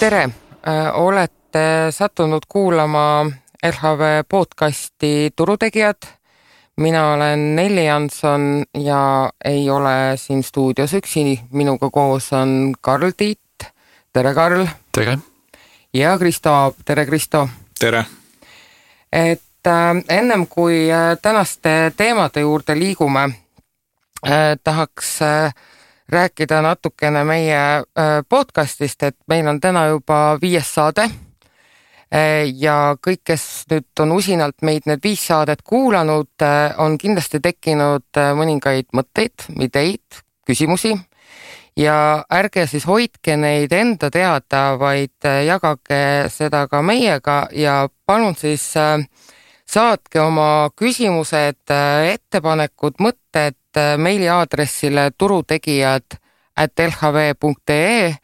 Tere! Olete sattunud kuulama LHV podcasti Turutegijad. Mina olen Nelli Jansson ja ei ole siin stuudios üksi. Minuga koos on Karl Tiit. Tere, Karl! Tere! Ja Kristo Aab. Tere, Kristo! Tere! Ennem kui tänaste teemade juurde liigume, tahaks rääkida natukene meie podcastist, et meil on täna juba 5 saade ja kõik, kes nüüd on usinalt meid need 5 saadet kuulanud, on kindlasti tekkinud mõningaid mõtteid, ideid, küsimusi ja ärge siis hoidke neid enda teada, vaid jagage seda ka meiega ja palun siis saatke oma küsimused, ettepanekud, mõtted meiliaadressile turutegijad@lhv.ee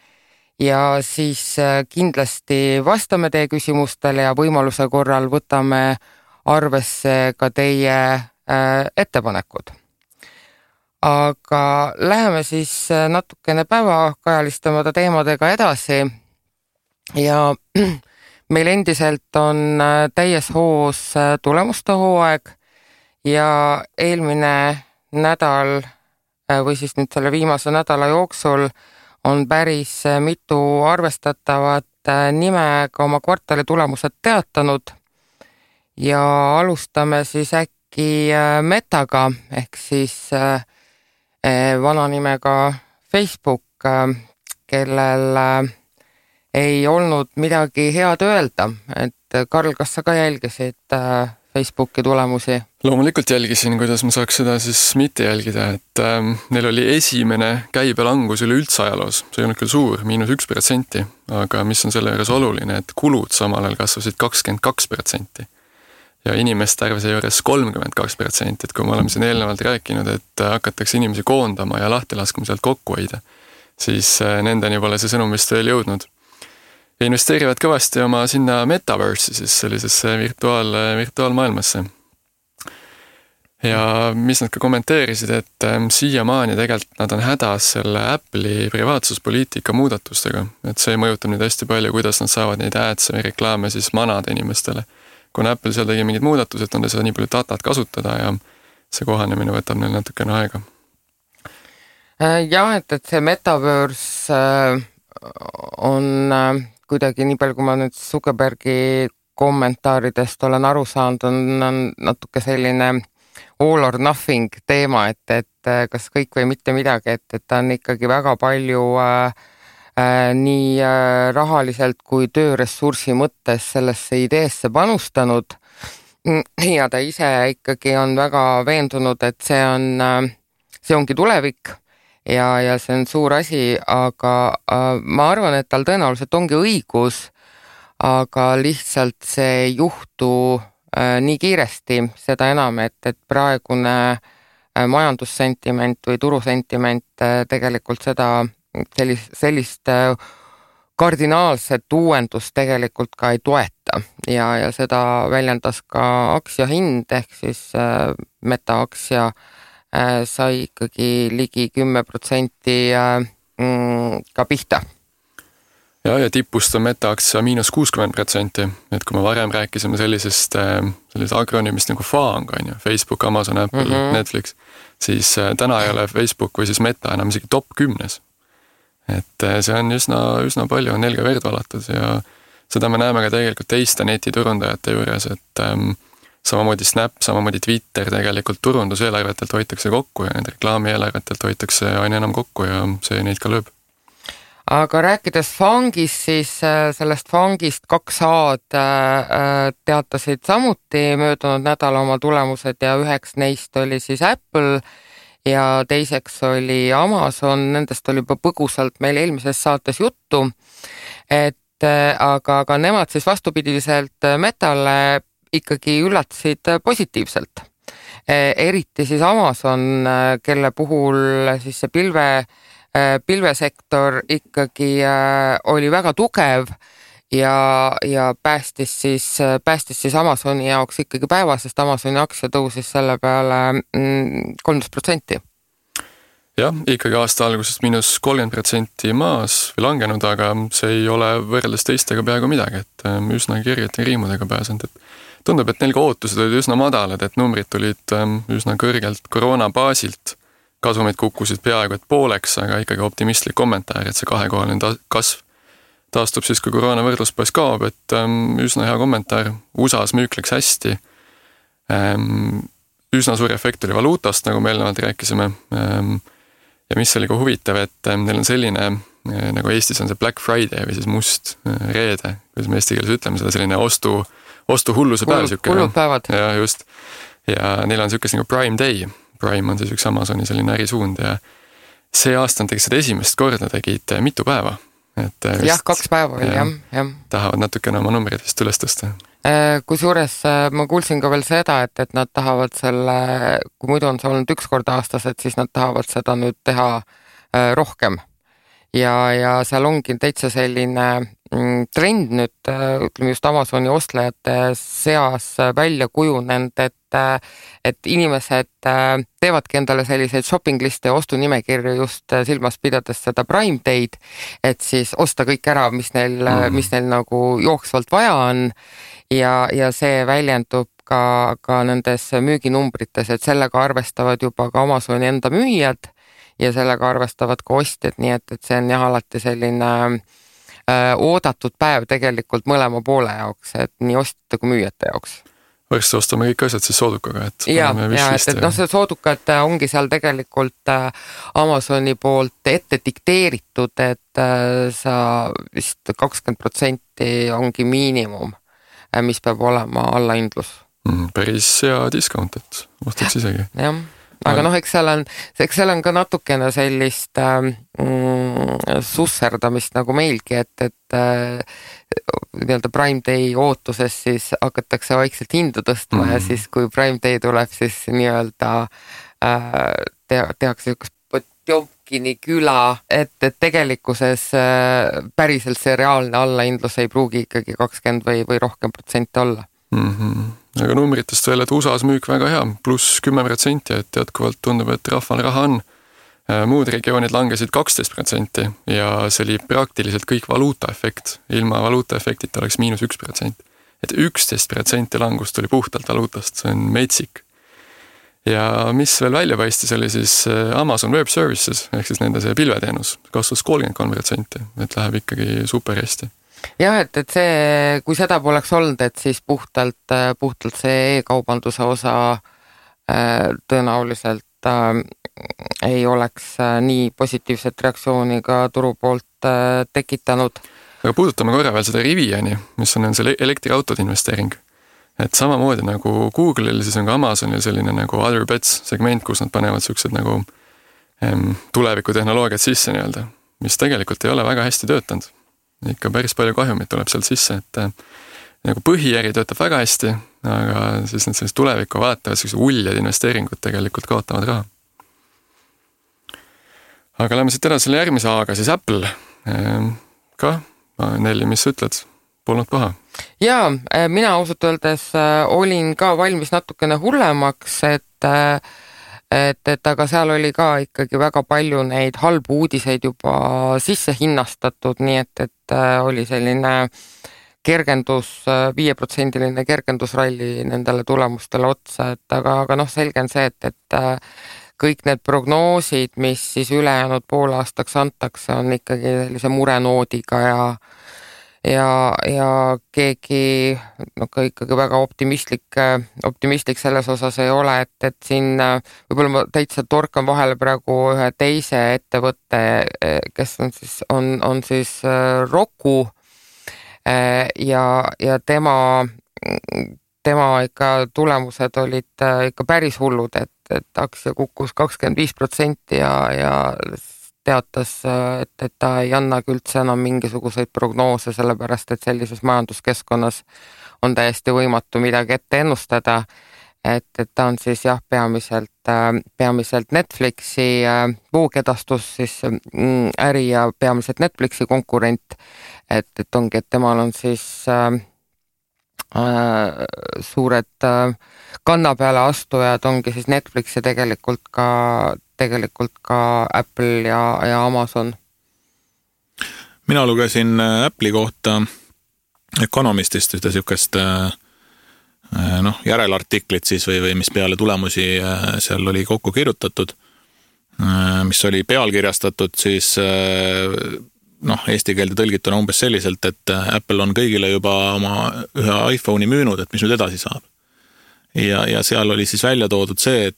ja siis kindlasti vastame teie küsimustele ja võimaluse korral võtame arvesse ka teie ettepanekud. Aga läheme siis natukene päevakajalistama teemadega edasi ja meil endiselt on täies hoos tulemuste hooaeg ja eelmine nädal või siis nüüd selle viimase nädala jooksul on päris mitu arvestatavat nime ka oma kvartali tulemused teatanud ja alustame siis äkki Metaga ehk siis vana nimega Facebook, kellel ei olnud midagi head öelda, et Karl, kas sa ka jälgisid Facebooki tulemusi? Loomulikult jälgisin, kuidas ma saaks seda siis mitte jälgida, et neil oli esimene käibelangus üleüldse ajaloos, see ei olnud küll suur, -1%, aga mis on selle juures oluline, et kulud samal ajal kasvasid 22% ja inimeste arv juures 32%, et kui me oleme siin eelnevalt rääkinud, et hakatakse inimesi koondama ja lahti laskma sealt kokku hoida, siis nendeni pole see sõnum vist veel jõudnud. Ja investeerivad kõvasti oma sinna metaverse'i, siis sellisesse virtuaalmaailmasse. Ja mis nad ka kommenteerisid, et siiamaani tegelikult nad on hädas selle Apple'i privaatsuspoliitika muudatustega, et see mõjutab neid hästi palju, kuidas nad saavad neid ads või reklaame siis manada inimestele. Kuna Apple seal tegi mingid muudatused, on seda nii palju datat kasutada ja see kohanemine võtab neil natukene aega. Jah, et see metaverse on kuidagi nii palju, kui ma nüüd Zuckerbergi kommentaaridest olen aru saanud, on natuke selline all or nothing teema, et kas kõik või mitte midagi, et ta on ikkagi väga palju nii rahaliselt kui tööressursi mõttes sellesse ideesse panustanud ja ta ise ikkagi on väga veendunud, et see ongi tulevik ja see on suur asi, aga ma arvan, et tal tõenäoliselt ongi õigus, aga lihtsalt see ei juhtu nii kiiresti, seda enam, et praegune majandussentiment või turusentiment tegelikult sellist kardinaalset uuendust tegelikult ka ei toeta ja seda väljendas ka aktsiohind ehk siis Meta aktsia sai ikkagi ligi 10% ka pihta. Ja tipust on Meta-aktsia -60%, et kui me varem rääkisime sellisest agronüümist nagu FAANG, Facebook, Amazon, Apple, Netflix, siis täna ei ole Facebook või siis Meta enam isegi top 10. Et see on üsna palju, on nelga verd valatud ja seda me näeme ka tegelikult teiste netiturundajate juures, et samamoodi Snap, samamoodi Twitter tegelikult turunduseelarvetelt hoitakse kokku ja need reklaamieelarvetelt hoitakse aina enam kokku ja see neid ka lööb. Aga rääkides FAANGist, siis sellest FAANGist 2A-d teatasid samuti möödunud nädala oma tulemused ja üheks neist oli siis Apple ja teiseks oli Amazon, nendest oli juba põgusalt meil eelmises saates juttu, aga nemad siis vastupidiselt Metale ikkagi üllatasid positiivselt. Eriti siis Amazon, kelle puhul siis see pilvesektor ikkagi oli väga tugev ja päästis siis Amazoni jaoks ikkagi päeva, sest Amazoni aktsia tõusis selle peale 13%. jah, ikkagi aasta algusest -30% maas või langenud, aga see ei ole võrreldes teistega peaaegu midagi, et üsna kirjete riimudega pääsenud, et tundub, et neil ka ootused olid üsna madalad, et numbrid tulid üsna kõrgelt koroona baasilt, kasumid kukkusid peaaegu et pooleks, aga ikkagi optimistlik kommentaar, et see kahekohaline kasv taastub siis, kui koroona võrdluspois kaob, et üsna hea kommentaar, USA-s müük läks hästi, üsna suur efekt oli valuutast, nagu me eelnevalt rääkisime, ja mis oli ka huvitav, et neil on selline, nagu Eestis on see Black Friday või siis must reede, kuidas me eesti keeles ütleme seda, selline ostuhulluse päev. Hullud päevad. Ja just. Ja neil on selline nagu Prime Day. Prime on siis üks Amazoni selline ärisuund ja see aasta tegid seda esimest korda, tegid mitu päeva. Et jah, 2 päeva oli, jah. Tahavad natukene oma numbrid vist üles tõsta. Kusjuures ma kuulsin ka veel seda, et nad tahavad selle, kui muidu on see olnud 1 kord aastas, et siis nad tahavad seda nüüd teha rohkem. Ja seal ongi täitsa selline trend nüüd, ütleme just Amazoni ostlejate seas välja kujunenud, et inimesed teevadki endale selliseid shopping liste ja ostunimekirju just silmas pidades seda Prime Day'd, et siis osta kõik ära, mis neil nagu jooksvalt vaja on ja see väljendub ka nendes müüginumbrites, et sellega arvestavad juba ka Amazoni enda müüjad ja sellega arvestavad ka ostjad, nii et see on jah alati selline oodatud päev tegelikult mõlema poole jaoks, et nii ostjate kui müüjate jaoks. Varsti ostame kõik asjad siis soodukaga, et see soodukad ongi seal tegelikult Amazoni poolt ette dikteeritud, et sa vist 20% ongi miinimum, mis peab olema allahindlus. Päris hea discount, et ostaks isegi. Jah. Aga eks seal on ka natukene sellist susserdamist nagu meilgi, et nii-öelda Prime Day ootuses siis hakatakse vaikselt hindu tõstma ja siis kui Prime Day tuleb, siis nii-öelda tehakse üks Potjomkini küla, et tegelikkuses päriselt see reaalne allahindlus ei pruugi ikkagi 20 või rohkem protsenti olla. Aga numbritest veel, et USA-s müük väga hea, pluss 10%, et jätkuvalt tundub, et rahval raha on. Muud regioonid langesid 12% ja see oli praktiliselt kõik valuutaefekt. Ilma valuutaefektita oleks -1%. Et 11% langust tuli puhtalt valuutast, see on metsik. Ja mis veel välja paistis, oli siis Amazon Web Services, ehk siis nende see pilveteenus, kasvas 33%, et läheb ikkagi super hästi. Jah, et see, kui seda poleks olnud, et siis puhtalt see e-kaubanduse osa tõenäoliselt ei oleks nii positiivset reaktsiooni ka turu poolt tekitanud. Aga puudutame korra veel seda Riviani, mis on see elektriautode investeering. Et samamoodi nagu Google'il, siis on ka Amazonil selline nagu Other Bets segment, kus nad panevad sellised nagu tulevikutehnoloogiat sisse nii-öelda, mis tegelikult ei ole väga hästi töötanud. Ikka päris palju kahjumit tuleb sealt sisse, et nagu põhiäri töötab väga hästi, aga siis need sellist tulevikku vaatavad, sellised uljad investeeringud tegelikult kaotavad raha. Aga lähme siit edasi selle järgmise A-ga, siis Apple. Ka, Nelli, mis sa ütled? Polnud paha? Jaa, mina ausalt öeldes olin ka valmis natukene hullemaks, et aga seal oli ka ikkagi väga palju neid halbu uudiseid juba sisse hinnastatud, nii et oli selline kergendus, 5% kergendusralli nendele tulemustele otsa, et aga selge on see, et kõik need prognoosid, mis siis ülejäänud poolaastaks antakse, on ikkagi sellise murenoodiga ja keegi ikkagi väga optimistlik selles osas ei ole, et siin võib-olla ma täitsa torkan vahele praegu ühe teise ettevõtte, kes on siis Roku ja tema ikka tulemused olid ikka päris hullud, et aktsia kukkus 25% ja teatas, et ta ei annagi üldse enam mingisuguseid prognoose, sellepärast et sellises majanduskeskkonnas on täiesti võimatu midagi ette ennustada, et ta on siis jah, peamiselt Netflixi voogedastus siis äri ja peamiselt Netflixi konkurent, et ongi, et temal on siis suured kanna peale astujad ongi siis Netflix ja tegelikult ka Apple ja Amazon. Mina lugesin Apple'i kohta Economistist ühte sükest järelartiklit siis või mis peale tulemusi seal oli kokku kirjutatud, mis oli pealkirjastatud siis eesti keelde tõlgituna umbes selliselt, et Apple on kõigile juba oma ühe iPhone'i müünud, et mis nüüd edasi saab. Ja seal oli siis välja toodud see,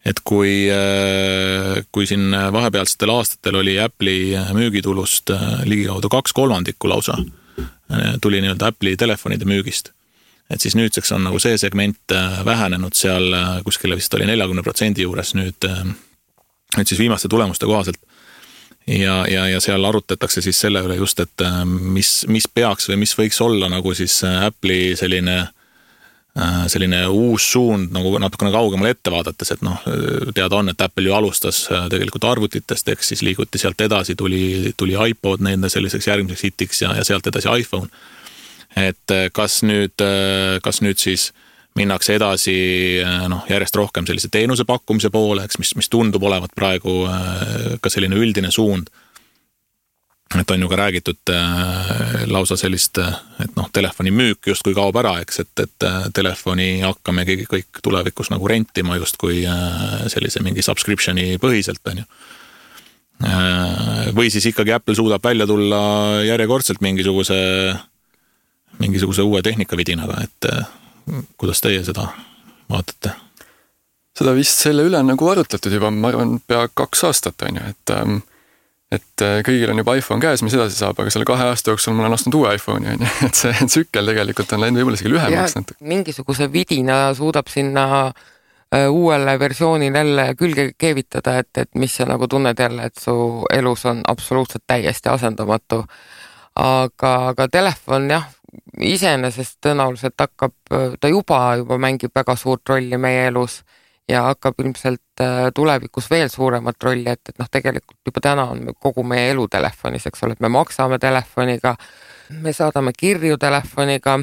et kui siin vahepealsetel aastatel oli Apple'i müügitulust ligikaudu 2/3 lausa, tuli nii-öelda Apple'i telefonide müügist. Et siis nüüdseks on nagu see segment vähenenud seal kuskile vist oli 40% juures nüüd siis viimaste tulemuste kohaselt. Ja seal arutatakse siis selle üle just, et mis peaks või mis võiks olla nagu siis Apple'i selline uus suund nagu natukene kaugemale ette vaadates, et teada on, et Apple ju alustas tegelikult arvutitest, eks siis liiguti sealt edasi, tuli iPod nende selliseks järgmiseks hitiks ja sealt edasi iPhone. Et kas nüüd siis minnakse edasi järjest rohkem sellise teenuse pakkumise poole, eks, mis tundub olevat praegu ka selline üldine suund. Et on ju ka räägitud lausa sellist, et telefoni müük justkui kaob ära, eks, et telefoni hakkamegi kõik tulevikus nagu rentima justkui sellise mingi subscriptioni põhiselt, on ju. Või siis ikkagi Apple suudab välja tulla järjekordselt mingisuguse uue tehnikavidinaga, et kuidas teie seda vaatate? Seda vist selle üle nagu arutletud juba, ma arvan, pea 2 aastat, on ju, et kõigil on juba iPhone käes, mis edasi saab, aga selle 2 aasta jooksul mul on ostnud uue iPhone'i, on ju, et see tsükkel tegelikult on läinud võib-olla isegi lühemaks. Mingisuguse vidina suudab sinna uuele versioonil jälle külge keevitada, et mis sa nagu tunned jälle, et su elus on absoluutselt täiesti asendamatu. Aga telefon jah, iseenesest tõenäoliselt ta juba mängib väga suurt rolli meie elus ja hakkab ilmselt tulevikus veel suuremat rolli, et tegelikult juba täna on kogu meie elu telefonis, eks ole, et me maksame telefoniga, me saadame kirju telefoniga,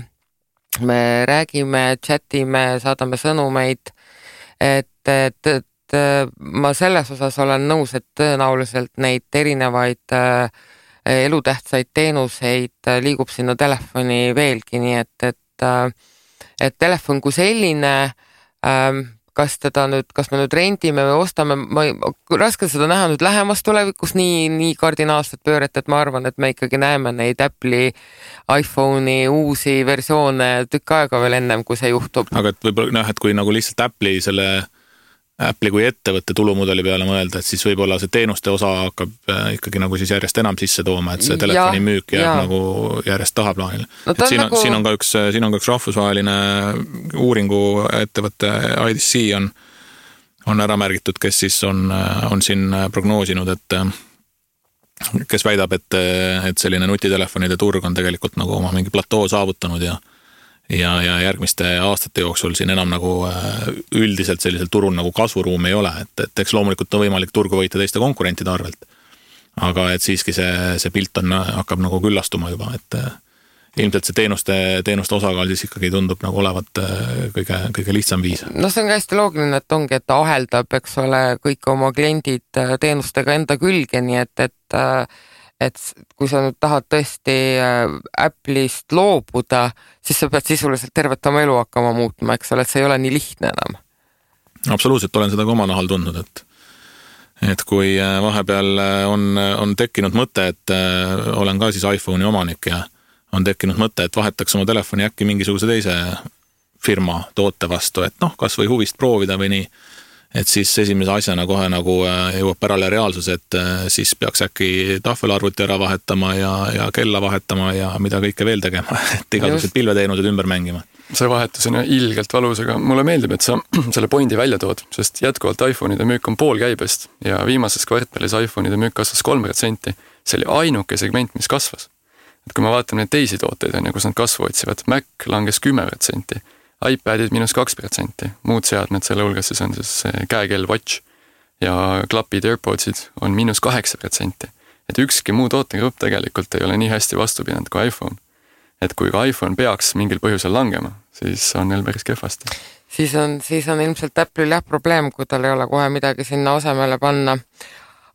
me räägime, chatime, saadame sõnumeid, et ma selles osas olen nõus, et tõenäoliselt neid erinevaid elutähtsaid teenuseid liigub sinna telefoni veelgi, nii et telefon kui selline, kas me nüüd rendime või ostame, raske seda näha nüüd lähemas tulevikus nii kardinaalset pööret, et ma arvan, et me ikkagi näeme neid Apple'i iPhone'i uusi versioone tükk aega veel ennem, kui see juhtub. Aga et võib-olla et kui nagu lihtsalt Apple'i kui ettevõtte tulumudeli peale mõelda, et siis võib-olla see teenuste osa hakkab ikkagi nagu siis järjest enam sisse tooma, et see telefoni müük jääb nagu järjest tahaplaanile. No, siin on ka üks rahvusvaheline uuringu ettevõtte IDC on ära märgitud, kes siis on siin prognoosinud, et kes väidab, et selline nutitelefonide turg on tegelikult nagu oma mingi platoo saavutanud ja järgmiste aastate jooksul siin enam nagu üldiselt sellisel turul nagu kasvuruum ei ole, et eks loomulikult on võimalik turgu võita teiste konkurentide arvelt. Aga et siiski see pilt hakkab nagu küllastuma juba, et ilmselt see teenuste osakaal siis ikkagi tundub nagu olevat kõige lihtsam viis. No see on ka hästi loogiline, et ongi, et ta aheldab, eks ole, kõik oma kliendid teenustega enda külge, nii et kui sa nüüd tahad tõesti Apple'ist loobuda, siis sa pead sisuliselt tervet oma elu hakkama muutma, eks ole, et see ei ole nii lihtne enam. Absoluutselt, olen seda ka oma nahal tundnud, et kui vahepeal on tekkinud mõte, et olen ka siis iPhone'i omanik ja on tekkinud mõte, et vahetaks oma telefoni äkki mingisuguse teise firma toote vastu, et kas või huvist proovida või nii. Et siis esimese asjana kohe nagu jõuab pärale reaalsus, et siis peaks äkki tahvelarvuti ära vahetama ja kella vahetama ja mida kõike veel tegema, et igasugused pilveteenused ümber mängima. See vahetus on ilgelt valus, aga mulle meeldib, et sa selle pointi välja tood, sest jätkuvalt iPhone'ide müük on pool käibest ja viimases kvartalis iPhone'ide müük kasvas 3%. See oli ainuke segment, mis kasvas. Et kui ma vaatan neid teisi tooteid, kus nad kasvu otsivad, Mac langes 10%. iPadid -2%, muud seadmed selle hulgas siis on siis käekell Watch ja klapid AirPodsid on -8%. Et ükski muu tootegrupp tegelikult ei ole nii hästi vastu pidanud kui iPhone. et kui ka iPhone peaks mingil põhjusel langema, siis on neil päris kehvasti. Siis on ilmselt Apple'il probleem, kui tal ei ole kohe midagi sinna asemele panna.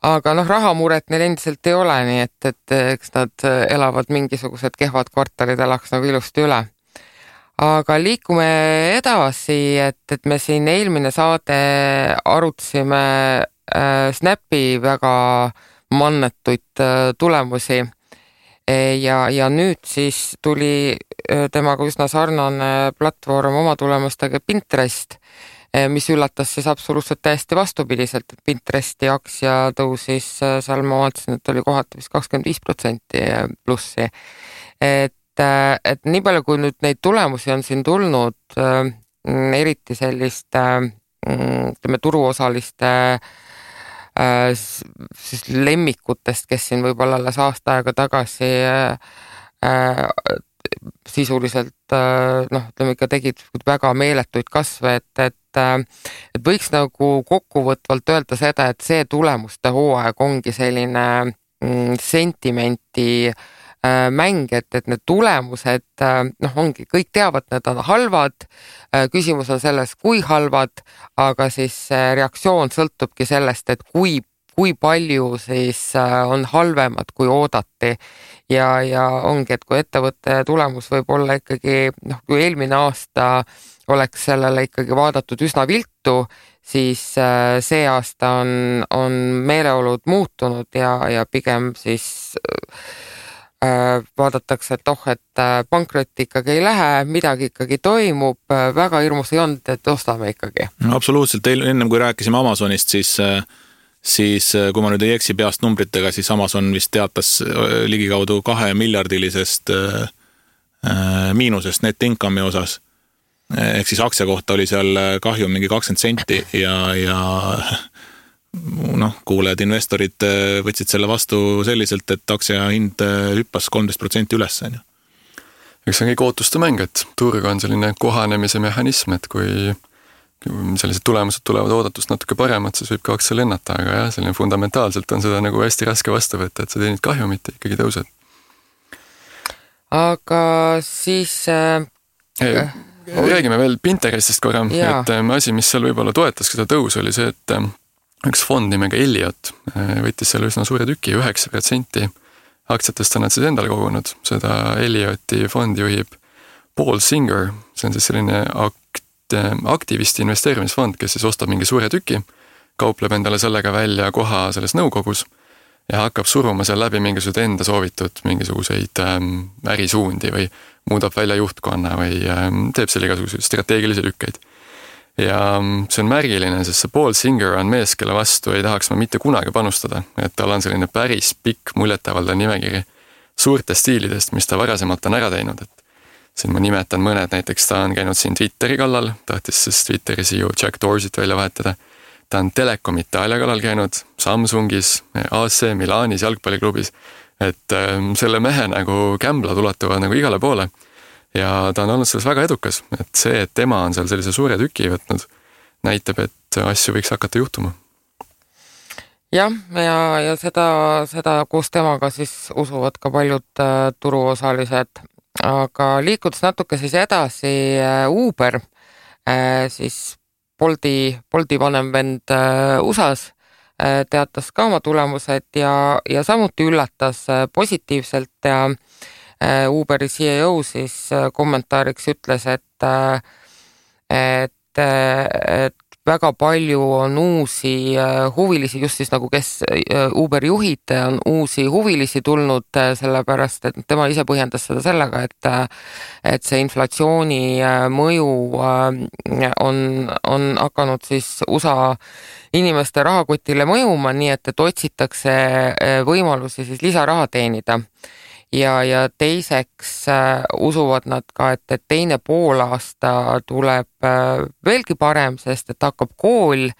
Aga rahamuret neil endiselt ei ole, nii et eks nad elavad mingisugused kehvad kvartalid, elaks nagu ilusti üle. Aga liikume edasi, et me siin eelmine saade arutasime Snapi väga mannetuid tulemusi ja nüüd siis tuli temaga üsna sarnane platvorm oma tulemustega Pinterest, mis üllatas siis absoluutselt täiesti vastupidiselt, et Pinteresti aktsia tõusis, seal ma vaatasin, et oli kohati vist 25% plussi. Et nii palju, kui nüüd neid tulemusi on siin tulnud, eriti selliste turuosaliste siis lemmikutest, kes siin võib-olla alles aasta aega tagasi sisuliselt ütleme ikka tegid väga meeletuid kasve, et võiks nagu kokkuvõtvalt öelda seda, et see tulemuste hooaeg ongi selline sentimenti mäng, et need tulemused ongi, kõik teavad, need on halvad, küsimus on selles, kui halvad, aga siis reaktsioon sõltubki sellest, et kui palju siis on halvemad, kui oodati ja ongi, et kui ettevõtte tulemus võib olla ikkagi, kui eelmine aasta oleks sellele ikkagi vaadatud üsna viltu, siis see aasta on meeleolud muutunud ja pigem siis vaadatakse, et pankrotti ikkagi ei lähe, midagi ikkagi toimub, väga hirmus ei olnud, et ostame ikkagi. No, absoluutselt, ennem kui rääkisime Amazonist, siis kui ma nüüd ei eksi peast numbritega, siis Amazon vist teatas ligikaudu 2 miljardilisest miinusest net income'i osas. Ehk siis aktsia kohta oli seal kahju mingi 20 senti ja kuulejad investorid võtsid selle vastu selliselt, et aktsia hind hüppas 13% üles. Üks on kõik ootuste mäng, et turg on selline kohanemise mehhanism, et kui sellised tulemused tulevad oodatust natuke paremad, siis võib ka aktsia lennata, aga jah, selline fundamentaalselt on seda nagu hästi raske vastu võtta, et sa teenid kahjumit ja ikkagi tõused. Aga siis räägime veel Pinterestist korra, et asi, mis seal võib-olla toetas seda tõus, oli see, et üks fond nimega Elliot võttis selle üsna suure tüki, 9% aktsiatest on nad siis endale kogunud. Seda Ellioti fondi juhib Paul Singer, see on siis selline aktivisti investeerimisfond, kes siis ostab mingi suure tüki, kaupleb endale sellega välja koha selles nõukogus ja hakkab suruma seal läbi mingisugused enda soovitud mingisuguseid ärisuundi või muudab välja juhtkonna või teeb selle igasuguseid strateegilisi lükkeid. Ja see on märgiline, sest see Paul Singer on mees, kelle vastu ei tahaks ma mitte kunagi panustada, et tal on selline päris pikk muljetavaldav nimekiri suurtest stiilidest, mis ta varasemalt on ära teinud, et siin ma nimetan mõned, näiteks ta on käinud siin Twitteri kallal, tahtis siis Twitteri CEO Jack Dorset välja vahetada, ta on Telekom Itaalia kallal käinud, Samsungis, AC Milanis jalgpalliklubis, et selle mehe nagu kämblad ulatuvad nagu igale poole. Ja ta on olnud selles väga edukas, et see, et tema on seal sellise suure tüki võtnud, näitab, et asju võiks hakata juhtuma. Jah, ja seda koos temaga siis usuvad ka paljud turuosalised, aga liikudes natuke siis edasi Uber, siis Bolti vanem vend USAs teatas ka oma tulemused ja samuti üllatas positiivselt ja Uberi CEO siis kommentaariks ütles, et väga palju on uusi huvilisi, just siis nagu kes Uberi juhid on uusi huvilisi tulnud, sellepärast, et tema ise põhjendas seda sellega, et see inflatsiooni mõju on hakanud siis USA inimeste rahakotile mõjuma, nii et otsitakse võimalusi siis lisaraha teenida. Ja teiseks usuvad nad ka, et teine poolaasta tuleb veelgi parem, sest et hakkab kool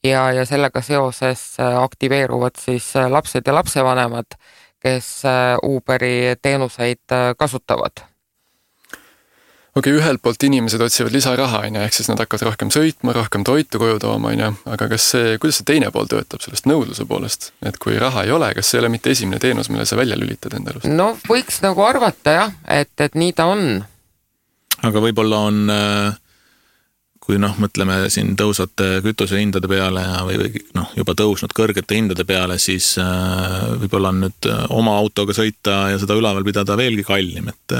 ja sellega seoses aktiveeruvad siis lapsed ja lapsevanemad, kes Uberi teenuseid kasutavad. Okei, ühelt poolt inimesed otsivad lisaraha, ehk siis nad hakkavad rohkem sõitma, rohkem toitu koju tooma, aga kuidas see teine pool töötab sellest nõudluse poolest? Et kui raha ei ole, kas see ei ole mitte esimene teenus, mille sa välja lülitad enda elust? No võiks nagu arvata jah, et nii ta on. Aga võib-olla on, kui mõtleme siin tõusvate kütuse hindade peale või juba tõusnud kõrgete hindade peale, siis võib-olla on nüüd oma autoga sõita ja seda üleval pidada veelgi kallim, et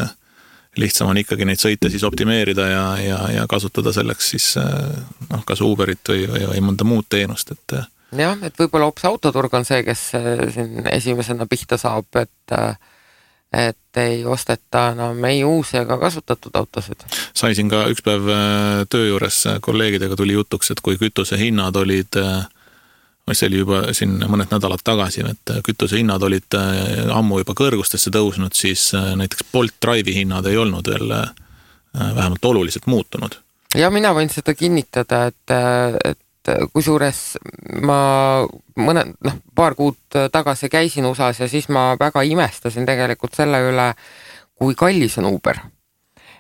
lihtsam on ikkagi neid sõite siis optimeerida ja kasutada selleks siis kas Uberit või mõnda muud teenust, et jah, et võib-olla hoopis autoturg on see, kes siin esimesena pihta saab, et ei osteta enam ei uusi ega kasutatud autosid. Sai siin ka üks päev töö juures kolleegidega tuli jutuks, et kui kütuse hinnad olid, see oli juba siin mõned nädalad tagasi, et kütuse hinnad olid ammu juba kõrgustesse tõusnud, siis näiteks Bolt Drive'i hinnad ei olnud veel vähemalt oluliselt muutunud. Ja mina võin seda kinnitada, et kusjuures ma paar kuud tagasi käisin USAs ja siis ma väga imestasin tegelikult selle üle, kui kallis on Uber.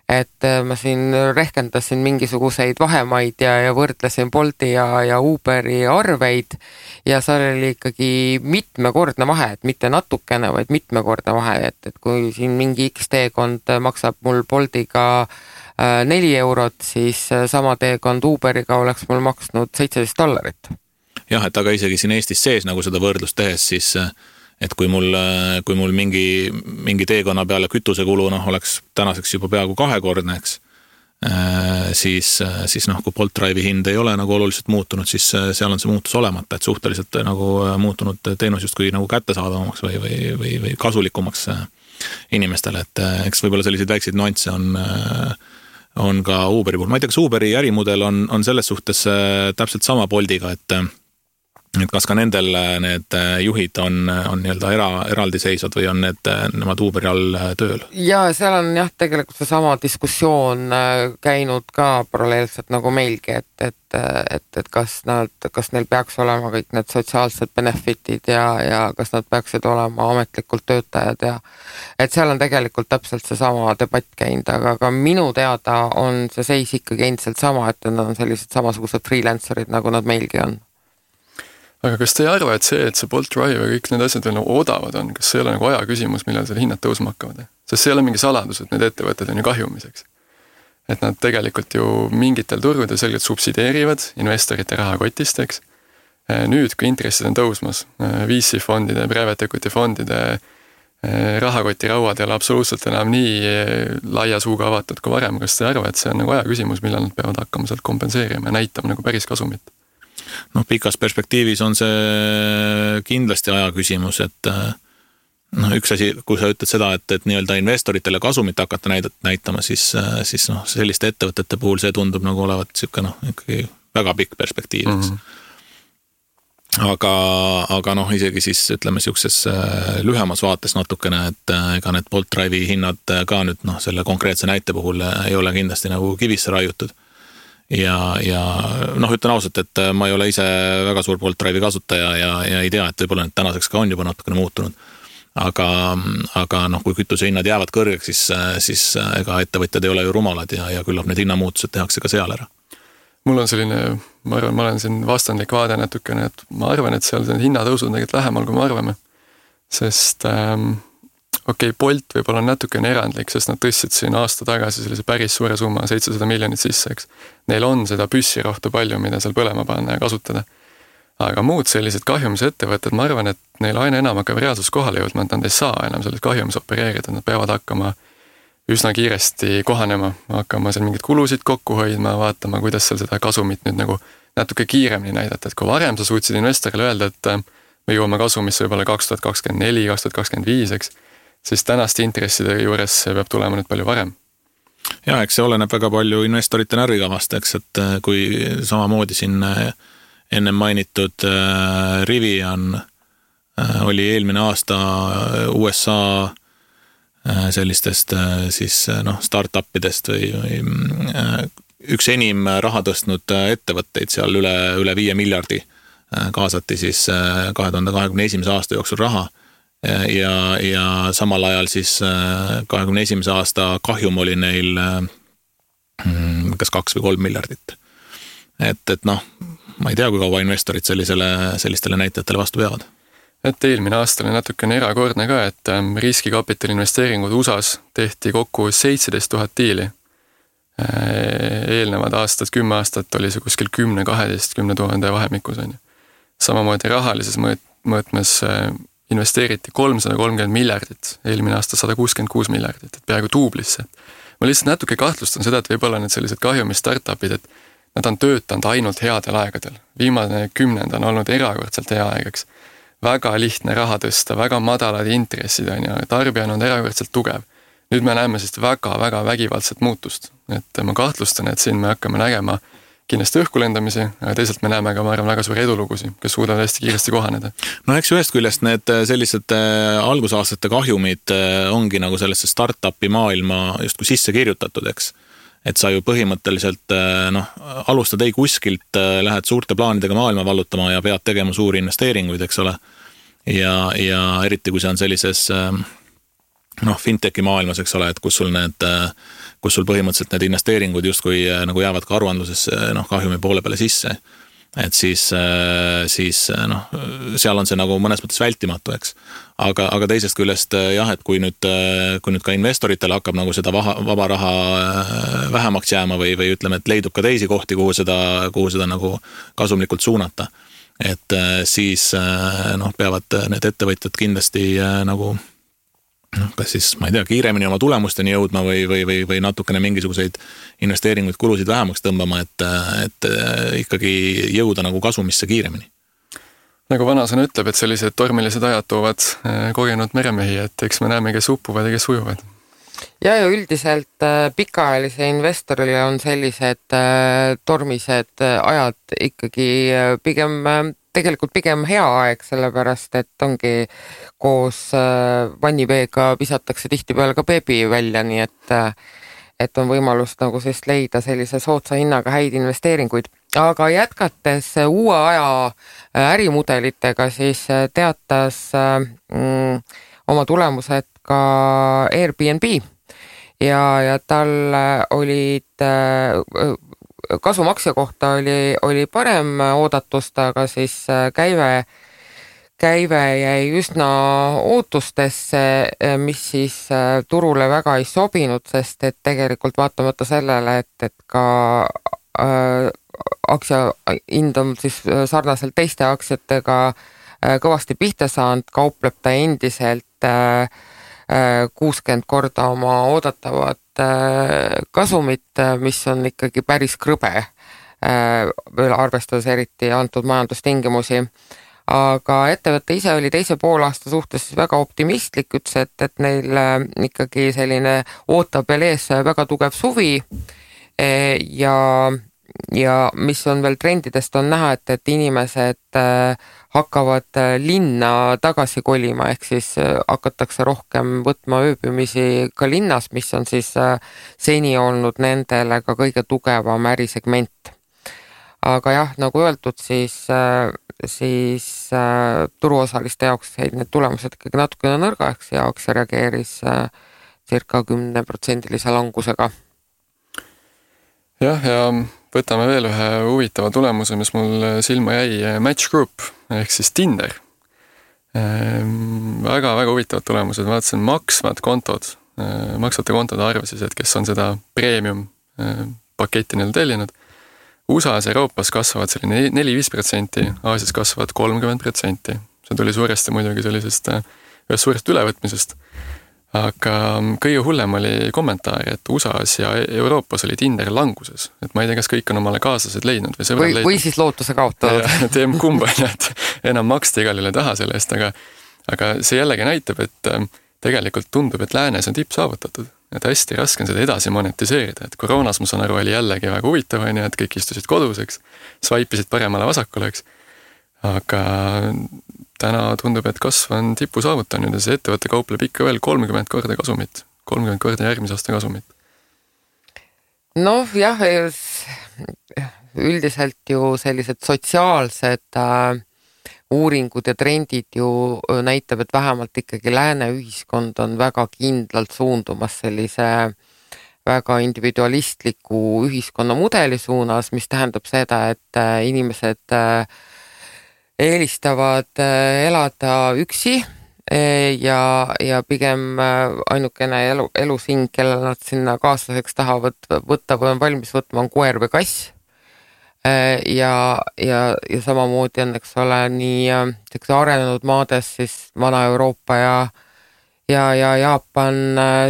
Et ma siin rehkendasin mingisuguseid vahemaid ja võrdlesin Bolti ja Uberi arveid ja seal oli ikkagi mitmekordne vahe, et mitte natukene, vaid mitmekordne vahe, et kui siin mingi X teekond maksab mul Boltiga 4 eurot, siis sama teekond Uberiga oleks mul maksnud $17. Jah, et aga isegi siin Eestis sees nagu seda võrdlust tehes, siis et kui mul mingi teekonna peale kütusekulu oleks tänaseks juba peaaegu 2-kordne, eks, siis kui Bolt Drive'i hind ei ole nagu oluliselt muutunud, siis seal on see muutus olemata, et suhteliselt nagu muutunud teenus justkui nagu kättesaadavamaks või kasulikumaks inimestele, et eks võib-olla selliseid väikseid nüansse on ka Uberi puhul. Ma ei tea, kas Uberi ärimudel on selles suhtes täpselt sama Boltiga, et kas ka nendel need juhid on nii-öelda eraldiseisvad või on nemad Uberi all tööl? Ja seal on jah, tegelikult see sama diskussioon käinud ka paralleelselt nagu meilgi, et kas neil peaks olema kõik need sotsiaalsed benefitid ja kas nad peaksid olema ametlikult töötajad ja et seal on tegelikult täpselt see sama debatt käinud, aga ka minu teada on see seis ikkagi endiselt sama, et nad on sellised samasugused freelancerid, nagu nad meilgi on. Aga kas te ei arva, et see Bolt Drive ja kõik need asjad veel nagu odavad on, kas see ei ole nagu aja küsimus, millal selle hinnad tõusma hakkavad? Sest see ei ole mingi saladus, et need ettevõtted on ju kahjumiseks. Et nad tegelikult ju mingitel turgudel selgelt subsideerivad investorite rahakotist, eks. Nüüd, kui intressid on tõusmas, VC-fondide, private equity fondide rahakoti rauad ei ole absoluutselt enam nii laia suuga avatud kui varem, kas te ei arva, et see on nagu aja küsimus, millal nad peavad hakkama sealt kompenseerima ja näitama nagu päris kasumit? Pikas perspektiivis on see kindlasti aja küsimus, et üks asi, kui sa ütled seda, et nii-öelda investoritele kasumit hakata näitama, siis selliste ettevõtete puhul see tundub nagu olevat ikkagi väga pikk perspektiiviks. Aga isegi siis ütleme siukses lühemas vaates natukene, et ega need Bolt Drive'i hinnad ka nüüd selle konkreetse näite puhul ei ole kindlasti nagu kivisse raiutud. Ja ütlen ausalt, et ma ei ole ise väga suur Bolt Drive'i kasutaja ja ei tea, et võib-olla need tänaseks ka on juba natukene muutunud. Aga kui kütuse hinnad jäävad kõrgeks, siis ega ettevõtjad ei ole ju rumalad ja küllap need hinnamuutused tehakse ka seal ära. Mul on selline, ma arvan, ma olen siin vastandlik vaade natukene, et ma arvan, et seal hinnatõusud on tegelikult lähemal, kui me arvame. Sest Bolt võib-olla on natukene erandlik, sest nad tõstsid siin aasta tagasi sellise päris suure summa, 700 miljonit sisse, eks. Neil on seda püssirohtu palju, mida seal põlema panna ja kasutada. Aga muud sellised kahjumise ettevõtted, ma arvan, et neil aina enam hakkab reaalsus kohale jõudma, et nad ei saa enam selles kahjumis opereerida, nad peavad hakkama üsna kiiresti kohanema, hakkama seal mingid kulusid kokku hoidma, vaatama, kuidas seal seda kasumit nüüd nagu natuke kiiremini näidata, et kui varem sa suutsid investorile öelda, et me jõuame kasumisse võib-olla 2024, 2025, eks, siis tänaste intresside juures see peab tulema nüüd palju varem. Ja, eks see oleneb väga palju investorite närvikavast, eks, et kui samamoodi siin ennem mainitud Rivian oli eelmine aasta USA sellistest siis startupidest või üks enim raha tõstnud ettevõtteid seal üle 5 miljardi kaasati siis 2021. aasta jooksul raha ja samal ajal siis 2021. aasta kahjum oli neil kas 2 või 3 miljardit. Et noh, ma ei tea, kui kaua investorid sellistele näitajatele vastu peavad. Et eelmine aasta oli natukene erakordne ka, et riskikapitali investeeringud USAs tehti kokku 17 000 diili. Eelnevad aastad, 10 aastat oli see kuskil 10-12 000 vahemikus. Samamoodi rahalises mõõtmes investeeriti 330 miljardit, eelmine aasta 166 miljardit, et peaaegu tuublisse. Ma lihtsalt natuke kahtlustan seda, et võib-olla need sellised kahjumi startupid, et nad on töötanud ainult headel aegadel. Viimane 10 on olnud erakordselt hea aegaks. Väga lihtne raha tõsta, väga madalad intressid ja tarbija on erakordselt tugev. Nüüd me näeme siis väga vägivaldset muutust. Et ma kahtlustan, et siin me hakkame nägema kindlasti õhkulendamisi, aga teisalt me näeme ka, ma arvan, väga suuri edulugusi, kes suudavad hästi kiiresti kohaneda. No eks ühest küljest need sellised algusaastate kahjumid ongi nagu sellesse startupi maailma justkui sisse kirjutatud, eks. Et sa ju põhimõtteliselt alustad ei kuskilt, lähed suurte plaanidega maailma vallutama ja pead tegema suuri investeeringuid, eks ole. Ja eriti kui see on sellises fintechi maailmas, eks ole, et kus sul põhimõtteliselt need investeeringud justkui nagu jäävad ka aruandlusesse kahjumi poole peale sisse. Et siis seal on see nagu mõnes mõttes vältimatu, eks. Aga teisest küljest jah, et kui nüüd ka investoritel hakkab nagu seda vaba raha vähemaks jääma või ütleme, et leidub ka teisi kohti, kuhu seda nagu kasumlikult suunata. Et siis peavad need ettevõtjad kindlasti nagu kas siis, ma ei tea, kiiremini oma tulemusteni jõudma või natukene mingisuguseid investeeringuid, kulusid vähemaks tõmbama, et ikkagi jõuda nagu kasumisse kiiremini. Nagu vanasõna ütleb, et sellised tormilised ajad toovad kogenud meremehi, et eks me näeme, kes uppuvad ja kes ujuvad. Ja üldiselt pikaajalise investorile on sellised tormised ajad ikkagi tegelikult pigem hea aeg, sellepärast, et ongi koos vanniveega visatakse tihtipeale ka beebi välja, nii et on võimalus nagu siis leida sellise soodsa hinnaga häid investeeringuid. Aga jätkates uue aja ärimudelitega, siis teatas oma tulemused ka Airbnb ja tal olid kasumaksja kohta oli parem oodatust, aga siis käive jäi üsna ootustesse, mis siis turule väga ei sobinud, sest et tegelikult vaatamata sellele, et ka aktsia hind on siis sarnaselt teiste aktsiatega kõvasti pihta saanud, kaupleb ta endiselt 60 korda oma oodatavat kasumit, mis on ikkagi päris krõbe, veel arvestades eriti antud majandustingimusi. Aga ettevõte ise oli teise poolaasta suhtes väga optimistlik, ütles, et neil ikkagi selline ootab veel ees väga tugev suvi ja mis on veel trendidest on näha, et inimesed hakkavad linna tagasi kolima, ehk siis hakatakse rohkem võtma ööbimisi ka linnas, mis on siis seni olnud nendele ka kõige tugevam ärisegment. Aga jah, nagu öeldud, siis turuosaliste jaoks jäid need tulemused ikkagi natukene nõrgaks ja aktsia reageeris circa 10% langusega. Jah, ja võtame veel ühe huvitava tulemuse, mis mul silma jäi, Match Group ehk siis Tinder. Väga huvitavad tulemused, vaatasin maksvate kontode arve siis, et kes on seda premium paketti neil tellinud. USA-s Euroopas kasvavad selline 4-5%, Aasias kasvavad 30%. See tuli suuresti muidugi sellisest ühest suurest ülevõtmisest. Aga kõige hullem oli kommentaar, et USA-s ja Euroopas oli Tinder languses. Et ma ei tea, kas kõik on omale kaaslased leidnud või sõbrad leidnud. Või siis lootuse kaotanud. Teem kumba, et enam maksta igalile taha selle eest, aga see jällegi näitab, et tegelikult tundub, et läänes on tipp saavutatud. Et hästi raske on seda edasi monetiseerida. Et koroonas, ma saan aru, oli jällegi väga huvitav, et kõik istusid koduseks, swipe'isid paremale vasakule, aga täna tundub, et kasv on tipu saavutanud ja see ettevõtte kaupleb ikka veel 30 korda kasumit, 30 korda järgmise aasta kasumit. Noh, jah, üldiselt ju sellised sotsiaalsed uuringud ja trendid ju näitab, et vähemalt ikkagi lääne ühiskond on väga kindlalt suundumas sellise väga individualistliku ühiskonnamudeli suunas, mis tähendab seda, et inimesed eelistavad elada üksi ja pigem ainukene elusing, kellel nad sinna kaaslaseks tahavad võtta või on valmis võtma, on koer või kass. Ja samamoodi on, eks ole, nii arenenud maades siis Vana-Euroopa ja Jaapan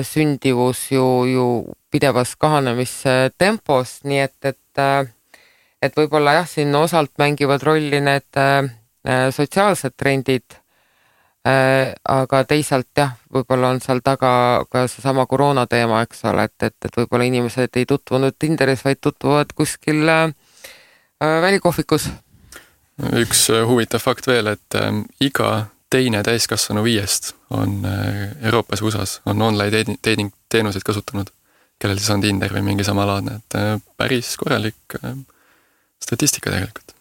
sündivus ju pidevas kahanemistempos, nii et võib-olla jah, siin osalt mängivad rolli need sotsiaalsed trendid, aga teisalt jah, võib-olla on seal taga ka seesama koroona teema, eks ole, et võib-olla inimesed ei tutvunud Tinderis, vaid tutvuvad kuskil välikohvikus. Üks huvitav fakt veel, et iga teine täiskasvanu 5 on Euroopas USAs, on online dating teenuseid kasutanud, kellel siis on Tinder või mingi samalaadne, et päris korralik statistika tegelikult.